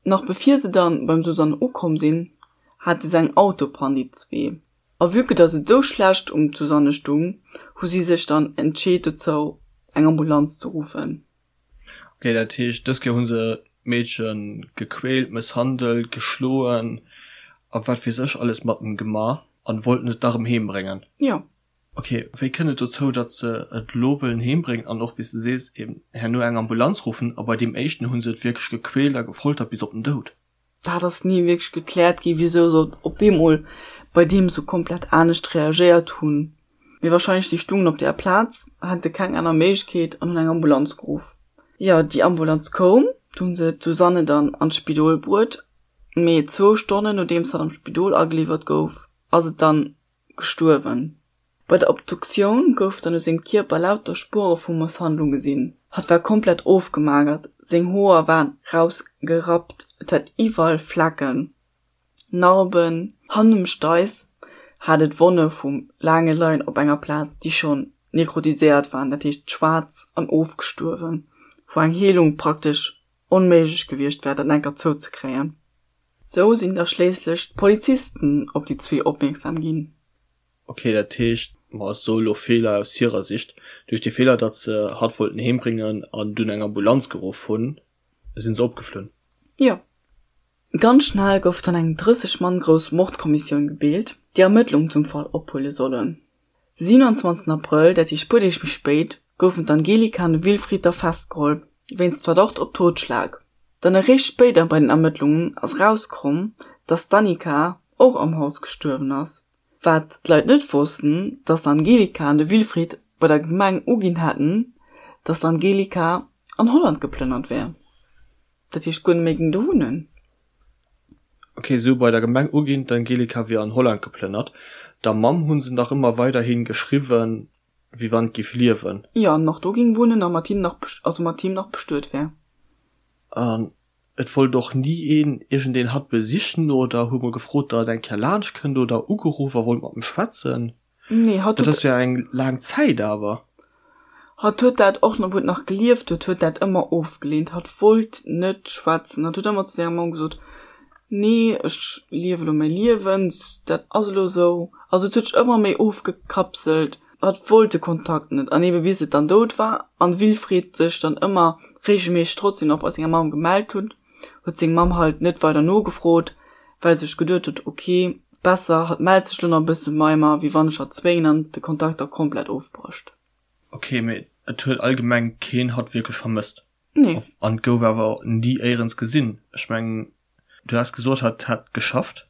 Nach bevir se dann beim Susanne ukomm sinn, hate se eng Autopann, déi zwee. A vue que dass et esou schlecht um d'Susanne stung, hu si sech dann entscheet dozou, eng Ambulanz ze ruffen. Ok, dat heescht dës Kéier hu se d'Meedche gequält, mësshandelt, geschloen a wat weess ech alles mat em gemaach an wollten et da rëm heem bréngen. Jo. Ok, wéi kënnt et dozou, datt se et elo wëllen heem bréngen an och, wéi s de sees, eben herno eng Ambulanz ruffen a bei deem éischten hu se et wierklech gequält a gefoltert bis op den Doud? Dat ass ni wierklech gekläert gi wisou se op eemol bei deem sou komplett anescht reagéiert hunn. Mee wahrscheinlech si stungen op der Plaz, hate keng aner Méiglechkeet an hunn eng Ambulanz geruff. Jo, déi Ambulanz koum, du hunn se d'Susanne dann an d'Spidol bruet, mee zwou Stonnen nodeems hatt am Spidol ageliwwert gouf, ass et dann gestuerwen. Bei der Obduktioun gouf dann u sengem Kierper lauter Spuere vu Mësshandlung gesinn. Hatt war komplett ofgemagert, seng Hoer waren rausgerappt, et hat iwwerall Flecken, Narben. Hannendem um Steiss hat et Wonne vum laange Leien op enger Plaz, déi schonn nekrotiséiert waren, dat heescht schwaarz an ofgestuerwen, wou eng Heelung praktesch onméiglech gewiescht wär, dat enker zouzekréien. Sou sinn da schléisslech d'Polizisten op déi zwee opmierksam ginn. Ok, dat heescht, ma ech soe lo Feeler aus hirer Sicht, duerch de Feeler, datt se hatt wollten heem bréngen an dunn eng Ambulanz geruff hunn, sinn se opgeflunn. Jo. Ganz schnell gouf dann eng 30 Mann grouss Mordkommissioun gebilt, déi Ermëttlungen zum Fall ophuele sollen. De 27 Abrëll, dat heescht puer Deeg méi spéit, goufen d'Angelika an de Wilfried da festgeholl, wéinst Verdacht op Totschlag. Dann eréischt spéider bei den Ermëttlungen ass erauskomm, datt d'Annika och am Haus gestuerwen ass. Wat d'Leit net wossten, datt d'Angelika an de Wilfried bei der Gemeng uginn hätten, datt d'Angelika an Holland geplënnert wär, dat heescht guer net méi géing do wunnen. Ok, se hu bei der Gemeng uginn, d'Angelika wier an Holland geplënnert. Der Mamm hu se nach ëmmer weiderhi geschriwwen, wéi wann et giff liewen. Jo, an nach do géing wunnen a mat him nach, also mat him nach bestuet wär. An et wollt och ni een iergendeen hatt besichen oder hu mol gefrot, datt et eng Kéier laanscht kënnt oder ugeruff a wollt mat em schwätzen. Nee, hatt Dat huet. ass jo eng laang Zäit awer. Hatt huet dat och, wou et nach gelieft huet, huet dat ëmmer ofgeleent. Hatt wollt net schwätzen. Hatt huet ëmmer zu senger Mamm gesot, Nee, ech liewe elo mäi Liewen, dat ass elo esou. Also et huet sech ëmmer méi ofgekapselt. Hatt wollt de Kontakt net. An ebe bis et dann dout war an Wilfried sech dann ëmmer reegelméisseg trotzdem nach bei senger Mamm gemellt huet, huet seng Mamm halt net weider nogefrot, well se sech geduet huet, ok, besser hatt mellt sech lo nach e bësse bei mer, wéi wann ech hatt zwéngen an de Kontakt da komplett ofbrécht. Ok, mee et huet allgemeng keen hatt wierklech vermësst. Nee. An et gouf awer ni éierens gesinn. Ech mengen, du has gesot, hatt hätt geschafft.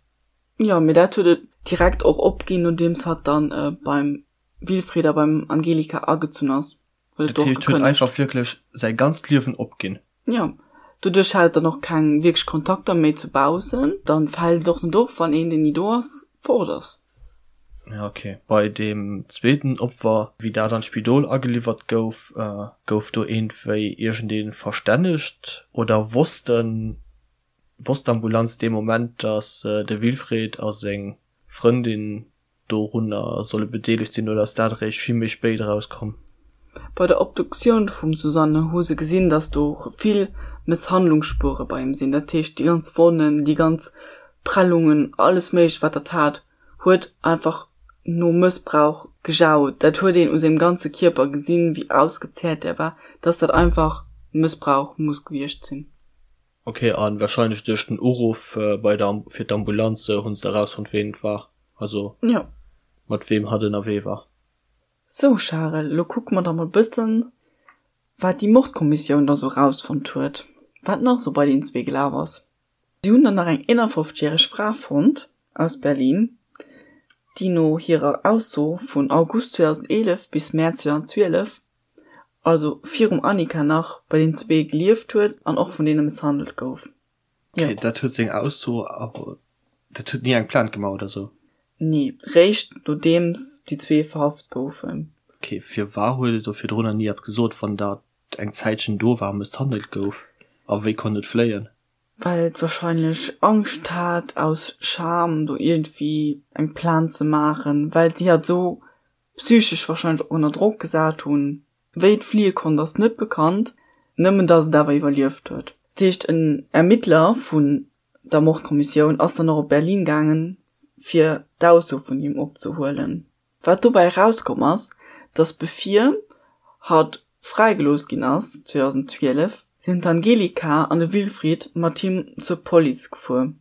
Jo, mee dat huet et direkt och opginn, nodeems hatt dann beim Wilfried a beim Angelika agezunn ass. Huet et Dat och heescht, huet gekënnegt. einfach wierklech säi ganzt Liewen opginn. Jo, doduerch hat et dann och keng wierklech Kontakter méi zu baussen. Dann fält et och net op, wann een, deen ni do ass, fort ass. Ja, ok. Bei deem zweeten Opfer, wéi dat an d'Spidol ageliwwert gouf, gouf do iergendwéi iergendee verstännegt oder wossten, wosst d'Ambulanz dee Moment, datt de Wilfried a seng Frëndin dorunner solle bedeelegt sinn oder ass dat eréischt vill méi spéit erauskomm? Bei der Obduktioun vum Susanne hu se gesinn, dass do vill Mësshandlungsspuere bei him sinn. Dat heescht, déi ganz Wonnen, déi ganz Prellungen, alles Méiglecht, wat dat hat, huet einfach no Mëssbrauch gejaut. Dat huet een u sengem ganze Kierper gesinn, wéi ausgezehrt der war, dass dat einfach Mëssbrauch muss gewiescht sinn. Ok, an wahrscheinlech duerch den Uruff bei der fir d'Ambulanz hunn se da rausfonnt ween et war, also Jo. mat weem hatt ënnerwee war. Sou Charel, lo kucke mer da mol bëssen wat déi Mordkommissioun da sou rausfonnt huet, wat nach sou bei deenen zwee gelaf ass. Si hunn dann nach eng 51 järeg Fra fonnt aus Berlin, déi no hirer Ausso vun August 2011 bis Mäerz 2012. Also virum Annika nach, bei den zwee gelieft huet an och vun deene mësshandelt gouf. Jo. Okay, dat huet seng Ausso, awer dat huet ni eng Plainte gemaach oder sou? Nee, réischt nodeems déi zwee verhaft goufen. Okay, firwar huet et do virdrunner ni eppes gesot, wann dat eng Zäitchen do war a mësshandelt gouf? A wéi konnt et fléien? Well et wahrscheinlech Angscht hat, aus Scham do iergendwéi eng Plainte ze maachen, well si hatt esou psychesch wahrscheinlech och ënner Drock gesat hunn. Wéi et fliie konnt ass net bekannt, nëmmen datt et awer iwwerlieft huet. Dat heescht en Ermittler vun der Mordkommissioun ass dann och op Berlin gaangen, fir d'Ausso vun him opzehuelen. Wat dobäi erauskomm ass, datt bevir hatt fräigelooss ginn ass 2012, sinn d'Angelika an de Wilfried mat him zur Police gefuer,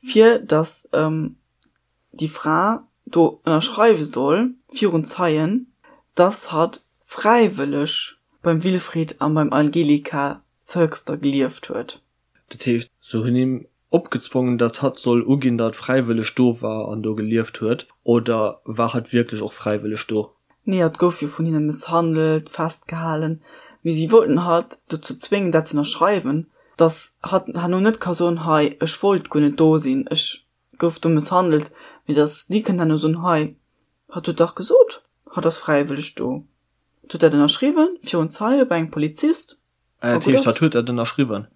fir datt déi Fra do ënnerschreiwe soll virun Zeien, dass hatt fräiwëlleg beim Wilfried a beim Angelika zu Höxter gelieft huet. Dat heescht, se hunn him opgezwongen, datt hatt soll uginn, datt fräiwëlleg do war an do gelieft huet, oder war hatt wierklech och fräiwëlleg do? Nee, hatt gouf jo vun hinne mësshandelt, festgehalen, mee si wollten hatt dozou zwéngen, dat ze ënnerschreiwen, dass hatt herno net ka soen, hei, ech wollt guer net do sinn, ech gouf do mësshandelt, mee dass si kënnen herno soen, hei, hatt huet dach gesot, hatt ass fräiwëlleg do, hatt huet dat ënnerschriwwen virun Zeie bei engem Polizist. Ah, dat heescht, hatt huet dat ënnerschriwwen?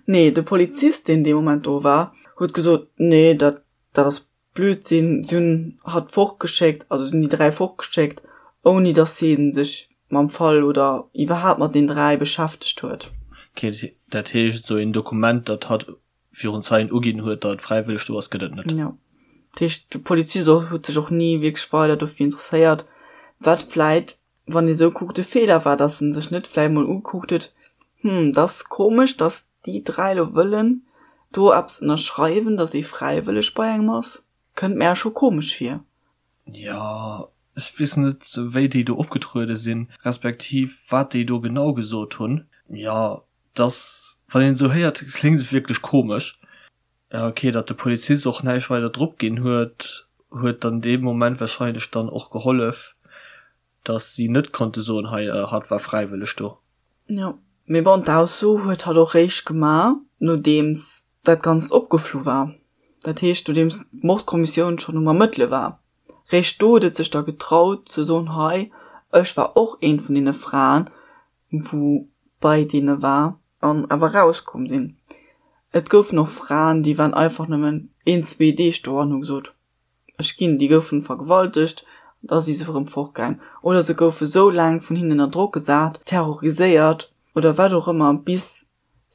Nee, de Polizist, deen dee Moment do war, huet gesot, nee, dat, dat ass Blödsinn. Si hunn hatt fortgeschéckt, also si hunn déi 3 fortgeschéckt, ouni dass hie sech mam Fall oder iwwerhaapt mat den 3 beschäftegt huet. Okay, dat heescht, esou een Dokument, datt hatt virun Zeien uginn huet, datt et fräiwëlleg do ass, gëtt et net. Jo. Dat heescht, de Polizist och huet sech och ni wierklech weider dofir interesséiert, wat vläit, wann ee sou kuckt, e Feeler war, datt en sech net vläit mol ugekuckt huet, Hm, dat ass komesch, datt déi 3 elo wëllen do eppes ënnerschreiwen, datt ee fräiwëlleg bei engem ass. Kënnt mär scho komesch vir. Jo, ech weess net, wéi déi do opgetruede sinn, respektiv wat déi do genau gesot hunn. Jo, Dass, wann een esou héiert, kléngt et wierklech komesch. Ja ok, datt de Polizist och näischt weider drop ginn huet, huet dann dee Moment warscheinlech dann och gehollef, datt si net konnte soen, hei, hatt war fräiwëlleg do. Jo, mee bon, d'Ausso huet hatt och réischt gemaach, nodeems dat Ganzt opgeflu war. Dat heescht, nodeems d'Mordkommissioun schonn um Ermëttele war. Réischt do huet et sech da getraut ze soen, hei, ech war och eent vun deene Fraen, wou bei deene war an awer rauskomm sinn. Et goufen och Fraen, déi waren einfach nëmmen een, zwee Deeg do an hu gesot, ech ginn. Déi goufen vergewaltegt an da si se erëm fortgaang. Oder se goufe sou laang vun hinnen ënner Drock gesat, terroriséiert oder wat och ëmmer, bis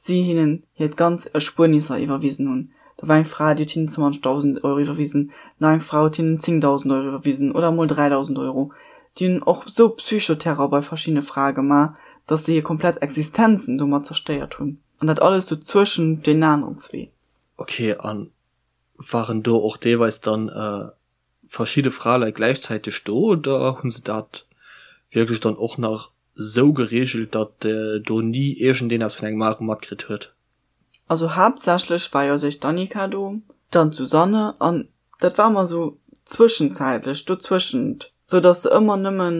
si hinnen hiert ganz Erspuernisser iwwerwisen hunn. Da war eng Fra, déi huet hinnen 20.000 Euro iwwerwisen, nach eng Fra huet hinnen 10.000 Euro iwwerwisen oder emol 3.000 Euro. Déi hunn och esou Psychoterror bei verschiddene Frae gemaach, datt se hir komplett Existenzen domat zerstéiert hunn. An dat alles sou zwëschent deenen aneren zwee. Ok, a waren do och deelweis dann verschidde Fraleit gläichzäiteg do oder hu se dat wierklech dann och nach sou geregelt, datt do ni iergendeen eppes vun engem anere matkritt huet? Also haaptsächlech war jo sech d'Annika do, dann d'Susanne an dat war ëmmer sou zwëschenzäitlech dozwëschent, sou datt se ëmmer nëmmen,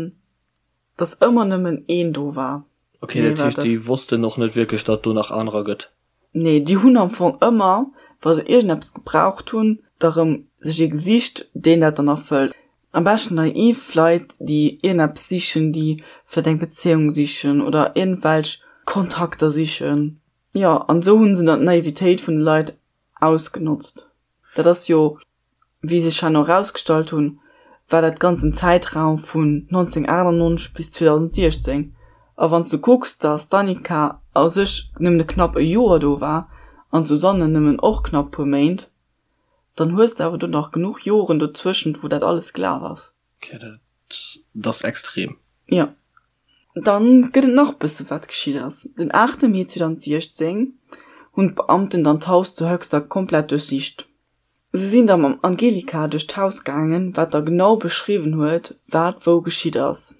datt ëmmer nëmmen een do war. Ok, dat heescht déi wossten och net wierklech, datt do nach anerer gëtt? Nee, déi hunn am Fong ëmmer, wa se iergendeppes gebraucht hunn, da rëm sech ee gesicht, deen dat dann erfëllt. Am beschten naiv Leit, déi iergendeppes sichen, déi vläicht eng Bezéiung sichen oder iergendwelch Kontakter sichen. Jo, an esou hu se dann d'Naivitéit vun de Leit ausgenotzt. Dat ass jo Wéi sech herno erausgestallt hunn, war dat ganzen Zäitraum vun 1998 bis 2016. A wann s du kucks, datt d'Annika a sech nëmmen e knapp e Joer do war an d'Susanne nëmmen och knapp puer Méint, dann hues de awer do nach genuch Joren dozwëschent, wou dat alles gelaf ass. Ok, dat ass extrem. Jo. Dann gëtt et nach bësse wat geschitt ass. Den 8 Mee 2016 hunn d'Beamten dann d'Haus zu Höxter komplett duerchsicht. Se sinn da mam Angelika duerch d'Haus gaangen, wat da genau beschriwwen huet, wat wou geschitt ass.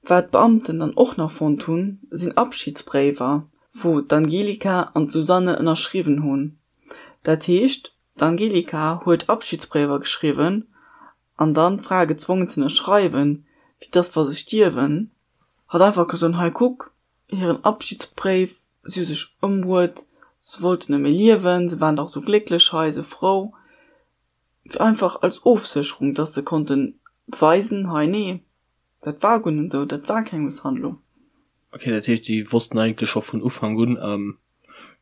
Wat d'Beamten dann och nach fonnt hunn, sinn Abschidsbréiwer, wou d'Angelika an d'Susanne ënnerschriwwen hunn. Dat heescht, d'Angelika huet Abschidsbréiwer geschriwwen an dann d'Frae gezwongen z'ënnerschreiwen, fir dass wa se stierwen, hatt einfach ka soen, hei kuck. hiren Abschiedsbréif, si hu sech ëmbruet, se wollten net méi liewen, se waren dach esou glécklech hei, esou frou. Einfach als Ofsécherung, dass se konnten beweisen, hei nee, dat war guer net esou, dat war keng Mësshandlung. Ok, dat heescht déi wossten eigentlech scho vun Ufank un,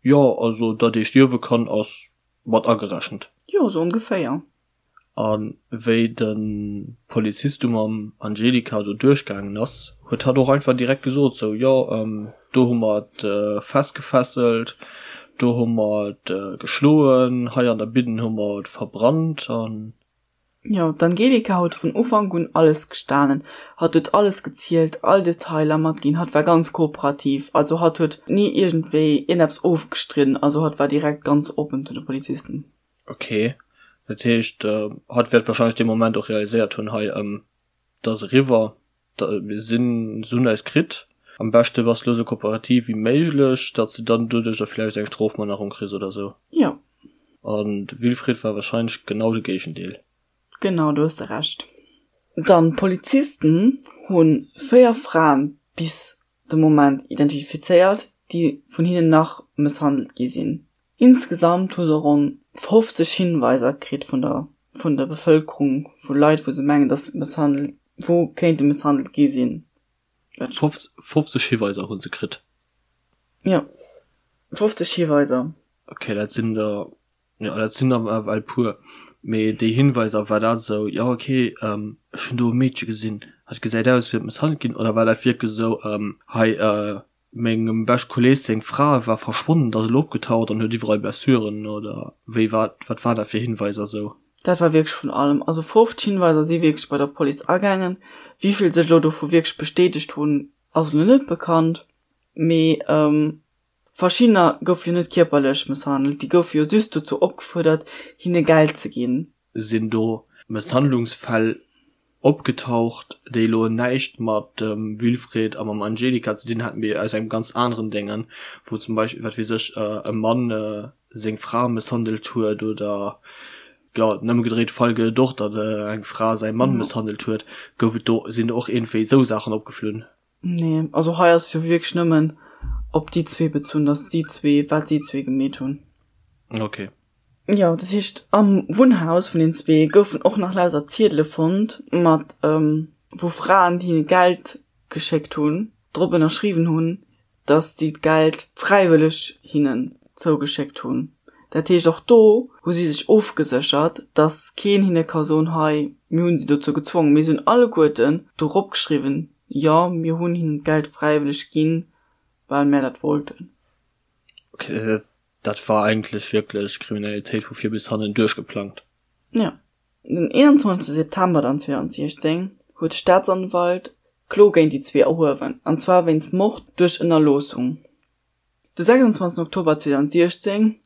jo also datt ee stierwe kann ass mat agerechent. Jo, sou ongeféier. A wéi de Polizist du mam Angelika do duerchgaangen ass, huet hatt och einfach direkt gesot, sou, jo, do hu mer et festgefesselt, do hu mer et geschloen, hei an der Bidden hu mer et verbrannt an. Jo, d'Angelika huet vun Ufank un alles gestanen. Hatt huet alles gezielt, all Detailer matginn, hatt war ganz kooperativ, also hatt huet ni iergendwéi iergendeppes ofgestridden, also hatt war direkt ganz oppen zu de Polizisten. Ok, dat heescht hatt wäert wahrscheinlech dee Moment och realiséiert hunn, hei et ass eriwwer, mir sinn, se hunn eis kritt, am beschte bass de elo esou kooperativ wéi méiglech, datt s de dann doduerch da vläicht eng Strofmannerung kriss oder esou. Jo. An de Wilfried war wahrscheinlech genau de Géigendeel. Genau, do hues de Recht. Dann, d'Polizisten hu 4 Fraen bis de Moment identifizéiert, déi vun hinnen nach mësshandelt gi sinn. Insgesamt hu se ronn 50 Hinweiser kritt vun der vun der Bevëlkerung, vu Leit, wou se mengen, datt mësshandelt, wou kéinte mësshandelt gi sinn. 50 Hiweiser hu se kritt? Jo, 50 Hiweiser. Ok, dat sinn der, jo, dat sinn der ewell puer. Mee déi Hinweiser, war dat esou, jo ok, ech hunn do e Meedche gesinn, hat gesäit aus, wéi mësshandelt ginn, oder war dat wierklech esou, hei, Mengem bescht Kolleg seng Fra war verschwonnen, ass elo opgetaucht an huet iwwerall Blessuren, oder wéi war, wat war dat fir Hinweiser sou? Dat war wierklech vun allem. Also 50 Hinweiser si wierklech bei der Police agaangen. Wéi vill sech elo dovu wierklech bestätegt hunn, ass elo net bekannt. Mee verschiddener goufe jo net kierperlech mësshandelt, déi goufe jo just dozou opgefuerdert, hinne Geld ze ginn. Sinn do Mësshandlungsfäll opgetaucht, déi elo näischt mat dem Wilfried a mam Angelika ze dinn haten, mee aus engem ganz aneren Déngen, wou zum Beispill, wat weess ech, e Mann seng Fra mësshandelt huet oder, jo, den ëmgedréite Fall gëtt et och, datt eng Fra säi Mann mësshandelt huet. Gouf et do, sinn do och iergendwéi esou Saachen opgeflunn? Nee, also hei ass jo wierklech nëmmen op déi zwee bezunn, datt si zwee, wat si zwee gemeet hunn. Ok. Jo, dat heescht am Wunnhaus vun den zwee goufen och nach lauter Ziedele fonnt mat wou Fraen, déi hinne Geld geschéckt hunn, drop ënnerschriwwen hunn, datt si d'Geld fräiwëlleg hinnen zougeschéckt hunn. Dat heescht och do hu si sech ofgeséchert, datt keen hinne ka soen, hei mir hunn si dozou gezwongen. Mee si hunn alleguerten dorop geschriwwen, jo mir hunn hinnen d'Geld fräiwëlleg ginn, well mär dat wollten. Ok, dat war eigentlech wierklech Kriminalitéit vu vir bis hannen duerchgeplangt. Jo. Den 21 September dann 2016 huet de Staatsanwalt Klo géint déi zwee erhuewen, an zwar wéinst Mord duerch Ënnerloossung. De 26 Oktober 2016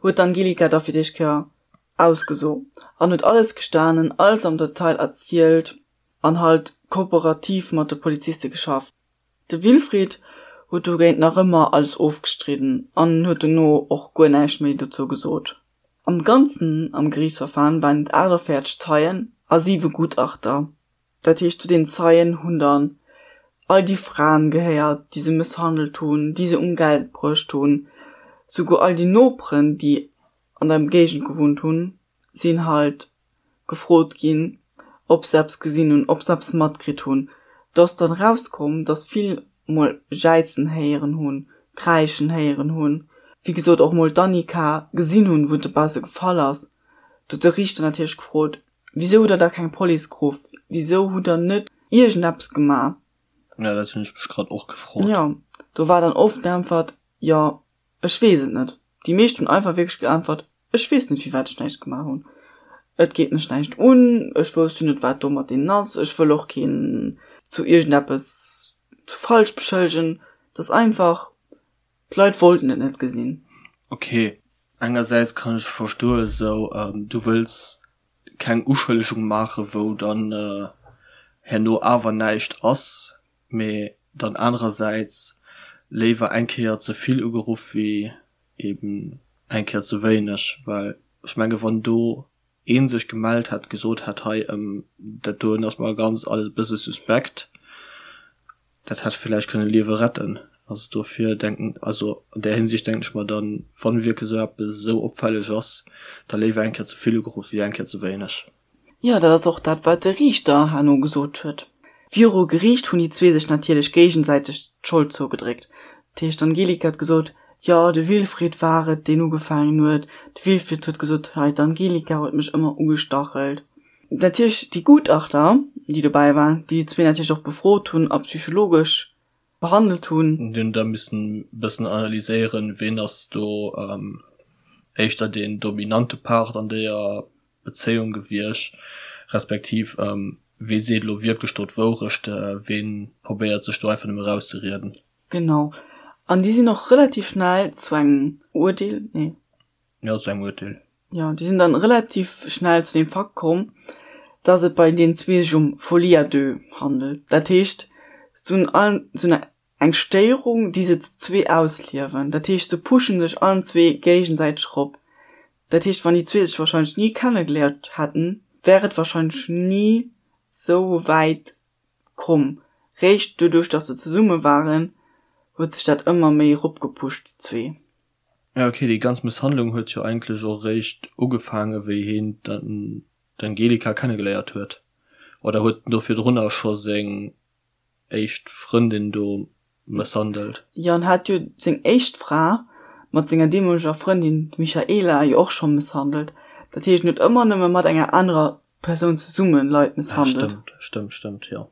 huet d'Angelika da fir d'éischt Kéier ausgeso an huet alles gestanen, alles am Detail erzielt an halt kooperativ mat de Poliziste geschafft. De Wilfried huet dogéint nach ëmmer alles ofgestridden an huet dono och guer näischt méi dozou gesot. Am Ganzen am Geriichtsverfahren waren et 48 Zeien a siwe Gutachter. Dat heescht, zu den Zeien hunn dann all déi Fraen gehéiert, déi se mësshandelt hunn, déi se um Geld bruecht hunn, souguer all déi Noperen, déi an der Géigend gewunnt hunn, sinn halt gefrot ginn, ob se eppes gesinn hunn, ob se eppes matkritt hunn. Do ass dann erauskomm, dass vill mol jäizen héieren hunn, kräischen héieren hunn, wéi gesot och mol d'Annika gesinn hunn, wou dobausse gefall ass. Do huet de Riichter natierlech gefrot, Wisou hutt der da keng Police geruff? Wisou hutt der net iergendeppes gemaach? Jo, dat hunn ech mech grad och gefrot. Jo, do war dann oft d'Äntwert, Jo, ech weess et net. Déi meescht hunn einfach wierklech geäntwert, Ech weess net, firwat ech näischt gemaach hunn. Et geet mech näischt un, ech wousst jo net, wat do mat deenen ass, ech wëll och keen zu iergendeppes zu falsch beschëllegen. Et ass einfach, d'Leit wollten et net gesinn. Ok, engersäits kann ech verstoen, esou du wëlls keng Uschëllegung maachen, wou dann herno awer näischt ass, mee dann anerersäits léiwer eng Kéier ze vill ugeruff wéi eben eng Kéier ze wéineg, well ech menge wann do ee sech gemellt hätt, gesot hätt, hei dat doen ass mer ganz alles e bësse suspekt, dat hätt villäicht kënne Liewe retten. Also dofir denken, also an där Hinsicht denken ech mer dann, wann wierklech esou eppes esou opfälleg ass, da léiwer eng Kéier ze vill ugeruff wéi eng Kéier ze wéineg. Jo, dat ass och dat, wat de Riichter herno gesot huet. Viru Geriicht hunn déi zwee sech natierlech géigesäiteg d'Schold zougedréckt. Dat heescht, d'Angelika huet gesot, jo, de Wilfried war et, deen ugefaangen huet. De Wilfried huet gesot, hei, d'Angelika huet mech ëmmer ugestachelt. Natierlech déi Gutachter, déi dobäi waren, déi déi zwee natierlech och befrot hunn a psychologesch behandelt hunn. Déi hunn da missen e bëssen analyséieren, ween ass do éischter deen dominante Part an deeër Bezéiung gewiescht, respektiv wee seet elo wierklech do d'Wourecht, wee probéiert sech do einfach nëmme erauszerieden. Genau. An déi sinn och relativ schnell zu engem Uerdeel, nee. Jo, zu engem Uerteel. Jo, déi sinn dann relativ schnell zu deem Fakt komm, dass et bei deenen zwee sech um Folie à deux handelt. Dat heescht, se hunn allen sou eng Stéierung, déi se zu zwee ausliewen. Dat heescht, se pushen sech allen zwee géigesäiteg erop. Dat heescht, wann déi zwee sech wahrscheinlech ni kennegeléiert hätten, wär et wahrscheinlech ni sou wäit komm. Réischt doduerch, dass se zesumme waren, huet sech dat ëmmer méi eropgepusht, déi zwee. Ja ok, déi ganz Mësshandlung huet jo eigentlech och eréischt ugefaange wéi heen d'Angelika kennegeléiert huet. Oder huet en do virdrunner scho seng éischt Frëndin do mësshandelt? Jo, en hat jo seng éischt Fra mat senger deemoleger Frëndin, d'Michaela, jo och scho mësshandelt. Dat heescht, en huet ëmmer nëmme mat enger anerer Persoun zesumme Leit mësshandelt. Stëmmt, stëmmt, stëmmt, jo.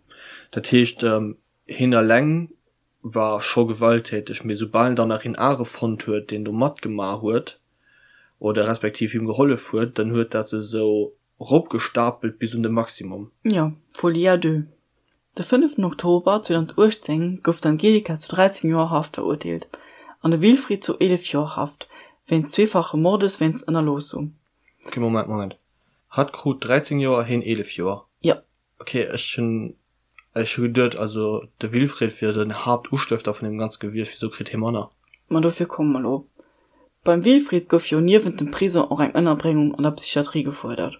Dat heescht, heen eleng war scho gewalttäteg, mee soubal en dann nach een anere fonnt huet, deen do matgemaach huet oder respektiv him gehollef huet, dann huet dat sech esou eropgestapelt bis un de Maximum. Jo, Folie à deux. De fënneften Oktober 2018 gouf d'Angelika zu 13 Joer Haft verurteelt an de Wilfried zu 11 Joer Haft wéinst zweefache Mordes wéinst Ënnerloossung. Ok, Moment, Moment. Hatt krut 13 Joer, heen 11 Joer? Jo. Ok, ech hunn ech hu geduet, also de Wilfried wier den Haaptustëfter vun deem ganze gewiescht, wisou kritt hie manner? Ma dofir komme mer elo. Beim Wilfried gouf jo niewent dem Prison och eng Ënnerbréngung an der Psychiatrie gefuerdert.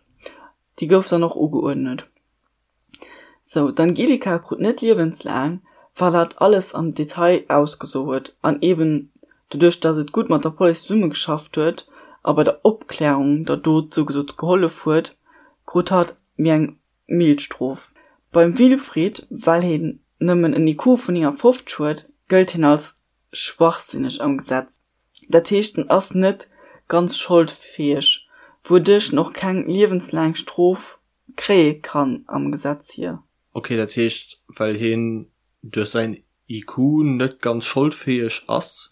Déi gouf dann och ugeuerdnet. Sou, d'Angelika krut net liewenslaang, well hatt alles am Detail ausgeso huet an eben doduerch, datt et gutt mat der Police zesummegeschafft huet a bei der Opklärung der Dot sougesot gehollef huet, krut hatt méi eng mild Strof. Beim Wilfried, well heen nëmmen en IQ vun 59 huet, gëllt hien als schwachsinneg am Gesetz. Dat heescht en ass net ganz scholdfäeg, wouduerch en och keng liewenslaang Strof kréie kann am Gesetz hier. Ok, dat heescht well heen duerch säin IQ net ganz scholdfäeg ass,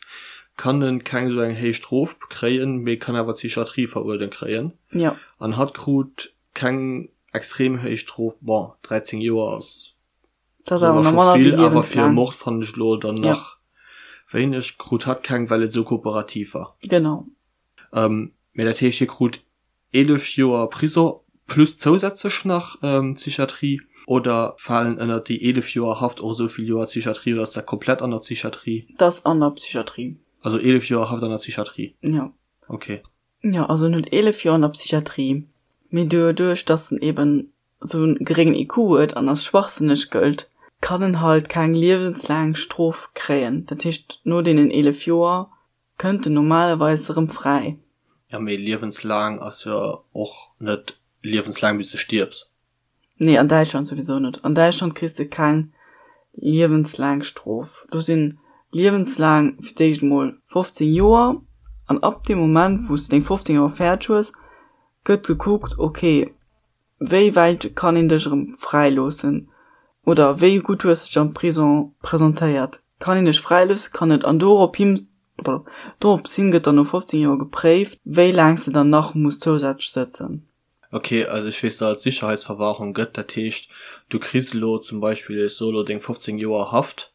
kann en keng esou eng héich Strof kréien, mee kann awer d'Psychiatrie veruerdent kréien. Jo. An hatt krut keng extrem héich Strof, bon 13 Joer ass Dat ass awer nach manner wéi vill, awer fir e Mord fannen ech elo dann nach wéineg. Krut hatt keng, well et esou kooperativ war. Genau. Mee dat heescht, hie krut 11 Joer Prisong plus zousätzlech nach Psychiatrie? Oder falen ënnert déi 11 Joer Haft och esou vill Joer Psychiatrie oder ass dat komplett an der Psychiatrie? Dat ass an der Psychiatrie. Also 11 Joer Haft an der Psychiatrie? Jo. Ok. Jo, also en huet 11 Joer an der Psychiatrie, mee doduerch dass en eben esou en geréngen IQ huet an als schwachsënneg gëllt, kann en halt keng liewenslaang Strof kréien. Dat heescht, no deenen 11 Joer kënnt en normalerweis erëm fräi. Jo, mee liewenslaang ass jo och net liewenslaang bis de stierfs. Nee, an Däitschland souwisou net. An Däitschland kriss de keng liewenslaang Strof. Do sinn liewenslaang fir d'éischt emol 15 Joer an ab deem Moment wou s de deng 15 Joer fäerdeg hues, gëtt gekuckt, ok, Wéi wäit kann een dech erëm fräi loossen? Oder wéi gutt hues dech am Prison presentéiert? Kann een dech fräi loossen? Kann net. An dorop hin, dorops hin gëtt dann no 15 Joer gepréift, wéi laang s de dann nach muss zousätzlech sëtzen. Ok, also ech weess, datt et Sicherheitsverwahrung gëtt. Dat heescht, du kriss elo zum Beispill, ech soe elo, deng 15 Joer Haft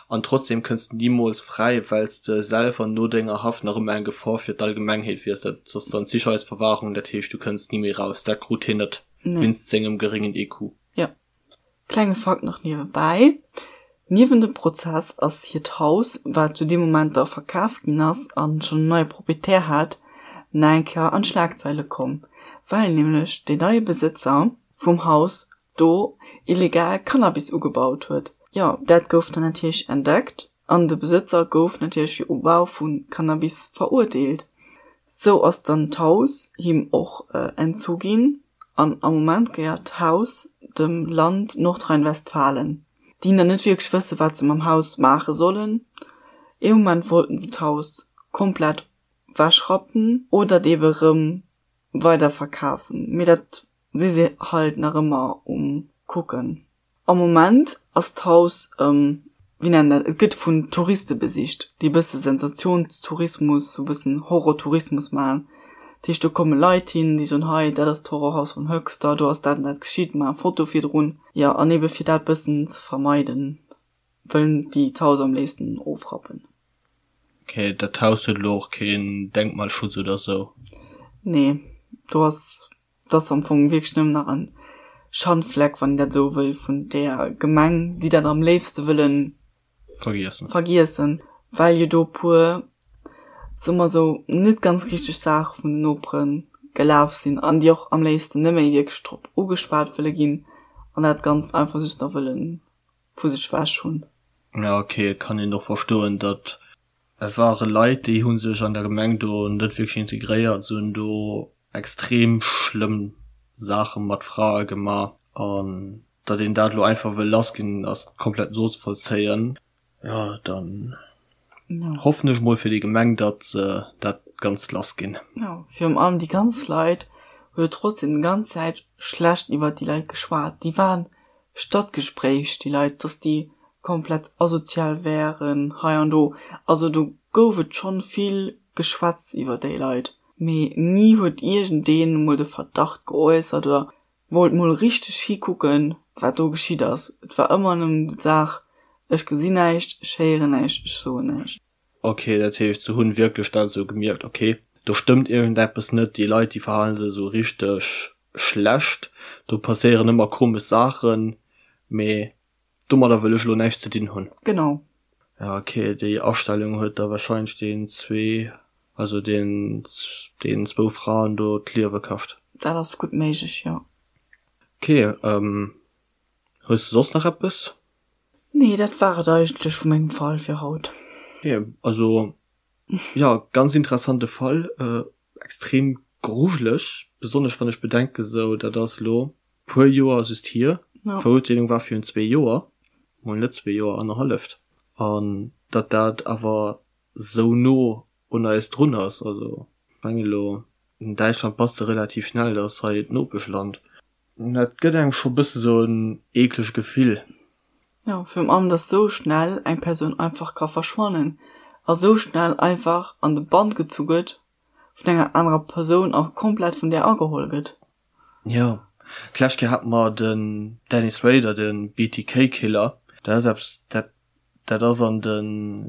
an trotzdem kënns de nimools fräi, well s de selwer no denger Haft nach ëmmer eng Gefor fir d'Allgemengheet wiers. Dat ass dann d'Sicherheitsverwahrung, dat heescht, du kënns ni méi raus. Dat krut hien net wéinst sengem geréngen IQ. Jo. Klenge Fakt nach niewebäi, Niewent dem Prozess ass hiert Haus, wat zu deem Moment da verkaf ginn ass a schonn en neie Proprietär hat, nach eng Kéier an d'Schlagzeile komm, well nämlech deen neie Besëtzer vum Haus do illegal Cannabis ugebaut huet. Jo, dat gouf dann natierlech entdeckt. An de Besëtzer gouf natierlech fir Ubau vu Cannabis verurteelt. Sou ass dann d'Haus him och entzu ginn an am Moment gehéiert d'Haus dem Land Nordrhein-Westfalen, déi nach net wierklech wësse wat se mam Haus maache sollen. Ee Moment wollten se d'Haus komplett wechrappen oder et ebe rëm weider verkafen, mee dat si se halt nach ëmmer um kucken. Am Moment ass d'Haus, wéi nennt een dat, et gëtt vun Touriste besicht, déi e bësse Sensationstourismus, sou e bëssen Horrortourismus maachen. Dat heescht, do komme Leit hin, déi soen, hei, dat ass d'Horrorhaus vun Höxter, do ass dat an dat geschitt, maache Foto virdrun. Jo, an ebe fir dat bëssen ze vermeiden, wëllen déi d'Haus am léifsten ofrappen. Ok, dat Haus huet elo och keen Denkmalschutz oder sou? Nee, do ass Et ass am Fong wierklech nëmmen nach en Schandfleck, wann een dat esou wëll, vun där Gemeng, déi dat am léifste wëlle Vergiessen. vergiessen, well jo do e puer, soe mer esou, net ganz richteg Saache vun den Nopere gelaf sinn an déi och am léifsten net méi wierklech drop ugeschwat wëlle ginn an dat Ganzt einfach just nach wëlle vu sech ewech hunn. Ja, ok, et kann een och verstoen, datt Et ware Leit, déi hu sech an der Gemeng do net wierklech integréiert, se hunn do extrem schlëmm Saache mat Frae gemaach. An datt een dat elo einfach wëll lassginn, ass komplett nozevollzéien. Jo, dann hoffen ech mol fir déi Gemeng, datt se dat Ganzt lassginn. Jo, virun allem déi ganz Leit hu jo trotzdem déi ganz Zäit schlecht iwwert déi Leit geschwat. Déi waren Stadtgespräch, déi Leit, dass déi komplett asozial wären hei an do. Also do gouf et schonn vill geschwätzt iwwer déi Leit, mee ni huet iergendeen emol de Verdacht geäussert oder wollt mol richteg hikucken, wat do geschitt ass. Et war ëmmer nëmmen d'Saach, ech gesinn näischt, ech héieren näischt, ech soen näischt. Ok, dat heescht se hunn wierklech dat esou gemierkt, ok do stëmmt iergendeppes net, déi Leit déi verhalen sech esou richteg schlecht, do passéieren ëmmer komesch Saachen, mee domadder wëll ech elo näischt ze dinn hunn. Genau. Ja ok, déi Astellung huet da wahrscheinlech deen zwee, also deen deen zwou Fraen do d'Liewe kascht. Dat ass gutt méiglech, jo. Ok, hues de soss nach eppes? Nee, dat war et eigentlech vu mengem Fall fir haut. Ok, also jo, ganz interessante Fall, extrem grujeleg, besonnesch wann ech bedenken esou dat ass elo puer Joer just hier, d'Verurteelung war virun zwee Joer, mol net zwee Joer, annerhalleft, an datt dat awer esou no un eis drun ass, also ech mengen elo an Däitschland bass de relativ schnell, dat ass hei d'Nopeschland. Dat gëtt engem scho bësse sou en eeklege Gefill. Jo, virun allem dass sou schnell eng Persoun einfach ka verschwannen a sou schnell einfach an de Bann gezu gëtt vun enger anerer Persoun a komplett vun där ageholl gëtt. Jo, d'lescht Kéier hate mer den Dennis Rader, de BTK Killer. Dat ass eppes, dat dat ass an de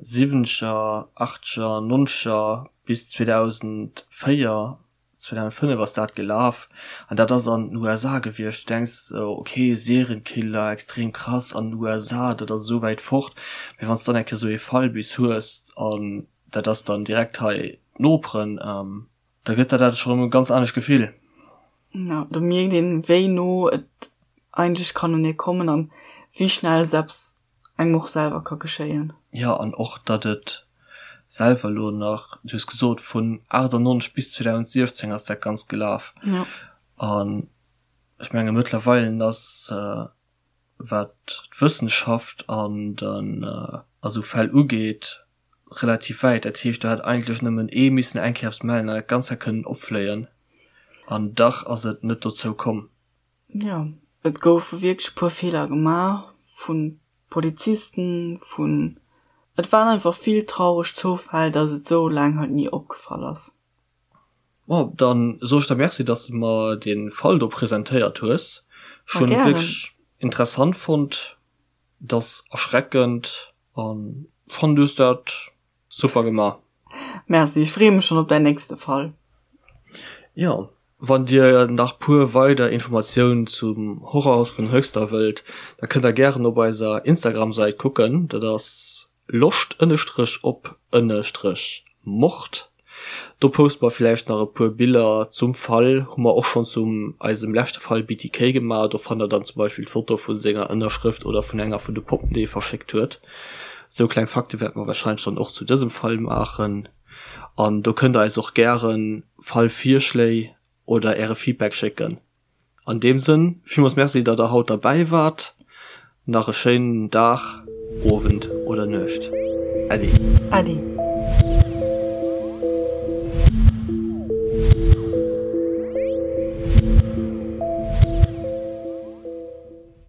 siwwenzeger, achtzeger, nonzeger bis 2004 2005 ass dat gelaf an dat ass an den USA gewiescht. Du denks esou, ok, Serienkiller, extrem krass an den USA, dat ass esou wäit fort. Mee wann s dann eng Kéier esou ee Fall bis hues an dat ass dann direkt hei d'Noperen, da gëtt der dat scho rëm e ganz anescht Gefill. Jo, do mierkt een, wéi no et eigentlech kann un ee kommen an wéi schnell selbst engem och selwer ka geschéien. Jo, an och datt et selwer elo nach, du hues gesot vun 98 bis 2016 ass dat Ganzt gelaf. Jo. An ech menge mëttlerweile ass, wat d'Wëssenschaft an den a sou Fäll ugeet, relativ wäit. Dat heescht, do hätt eigentlech nëmmen ee missen eng Kéier eppes mellen an dat Ganzt hätt kënnen opfléien. An dach ass et net dozou komm. Jo, et goufe wierklech e puer Feeler gemaach vu Polizisten, vun. Et waren einfach vill traureg Zoufäll, datt et esou laang halt ni opgefall ass. Bon, dann soe ech der Merci, dass de mer dee Fall do presentéiert hues. Ech hunn et wierklech interessant fonnt. Et ass erschreckend an ech fannen, du hues dat Super gemaach. Merci, ech freeë mech schon op däin nächste Fall. Jo, wann dir nach puer weider Informatiounen zum Horrorhaus vun Höxter wëllt, da kënnt der gären op eiser Instagram Säit kucken, dat ass loscht ënnestrech op ënnestrech mord. Do poste mer villäicht nach e puer Biller zum Fall, hu mer och schonn zum eisem leschte Fall BTK gemaach, do fannt der dann zum Beispill d'Foto vu senger Ënnerschrëft oder vun enger vun de Poppen déi e verschéckt huet. Sou kleng Fakte wäerte mer wahrscheinlech dann och zu dësem Fall maachen. An do kënnt der eis och gären Fallvirschléi oder äre Feedback schécken. An deem Sënn, villmools Merci, datt der haut derbäi waart. Nach e schéinen Dag, Owend oder Nuecht. Äddi. Äddi.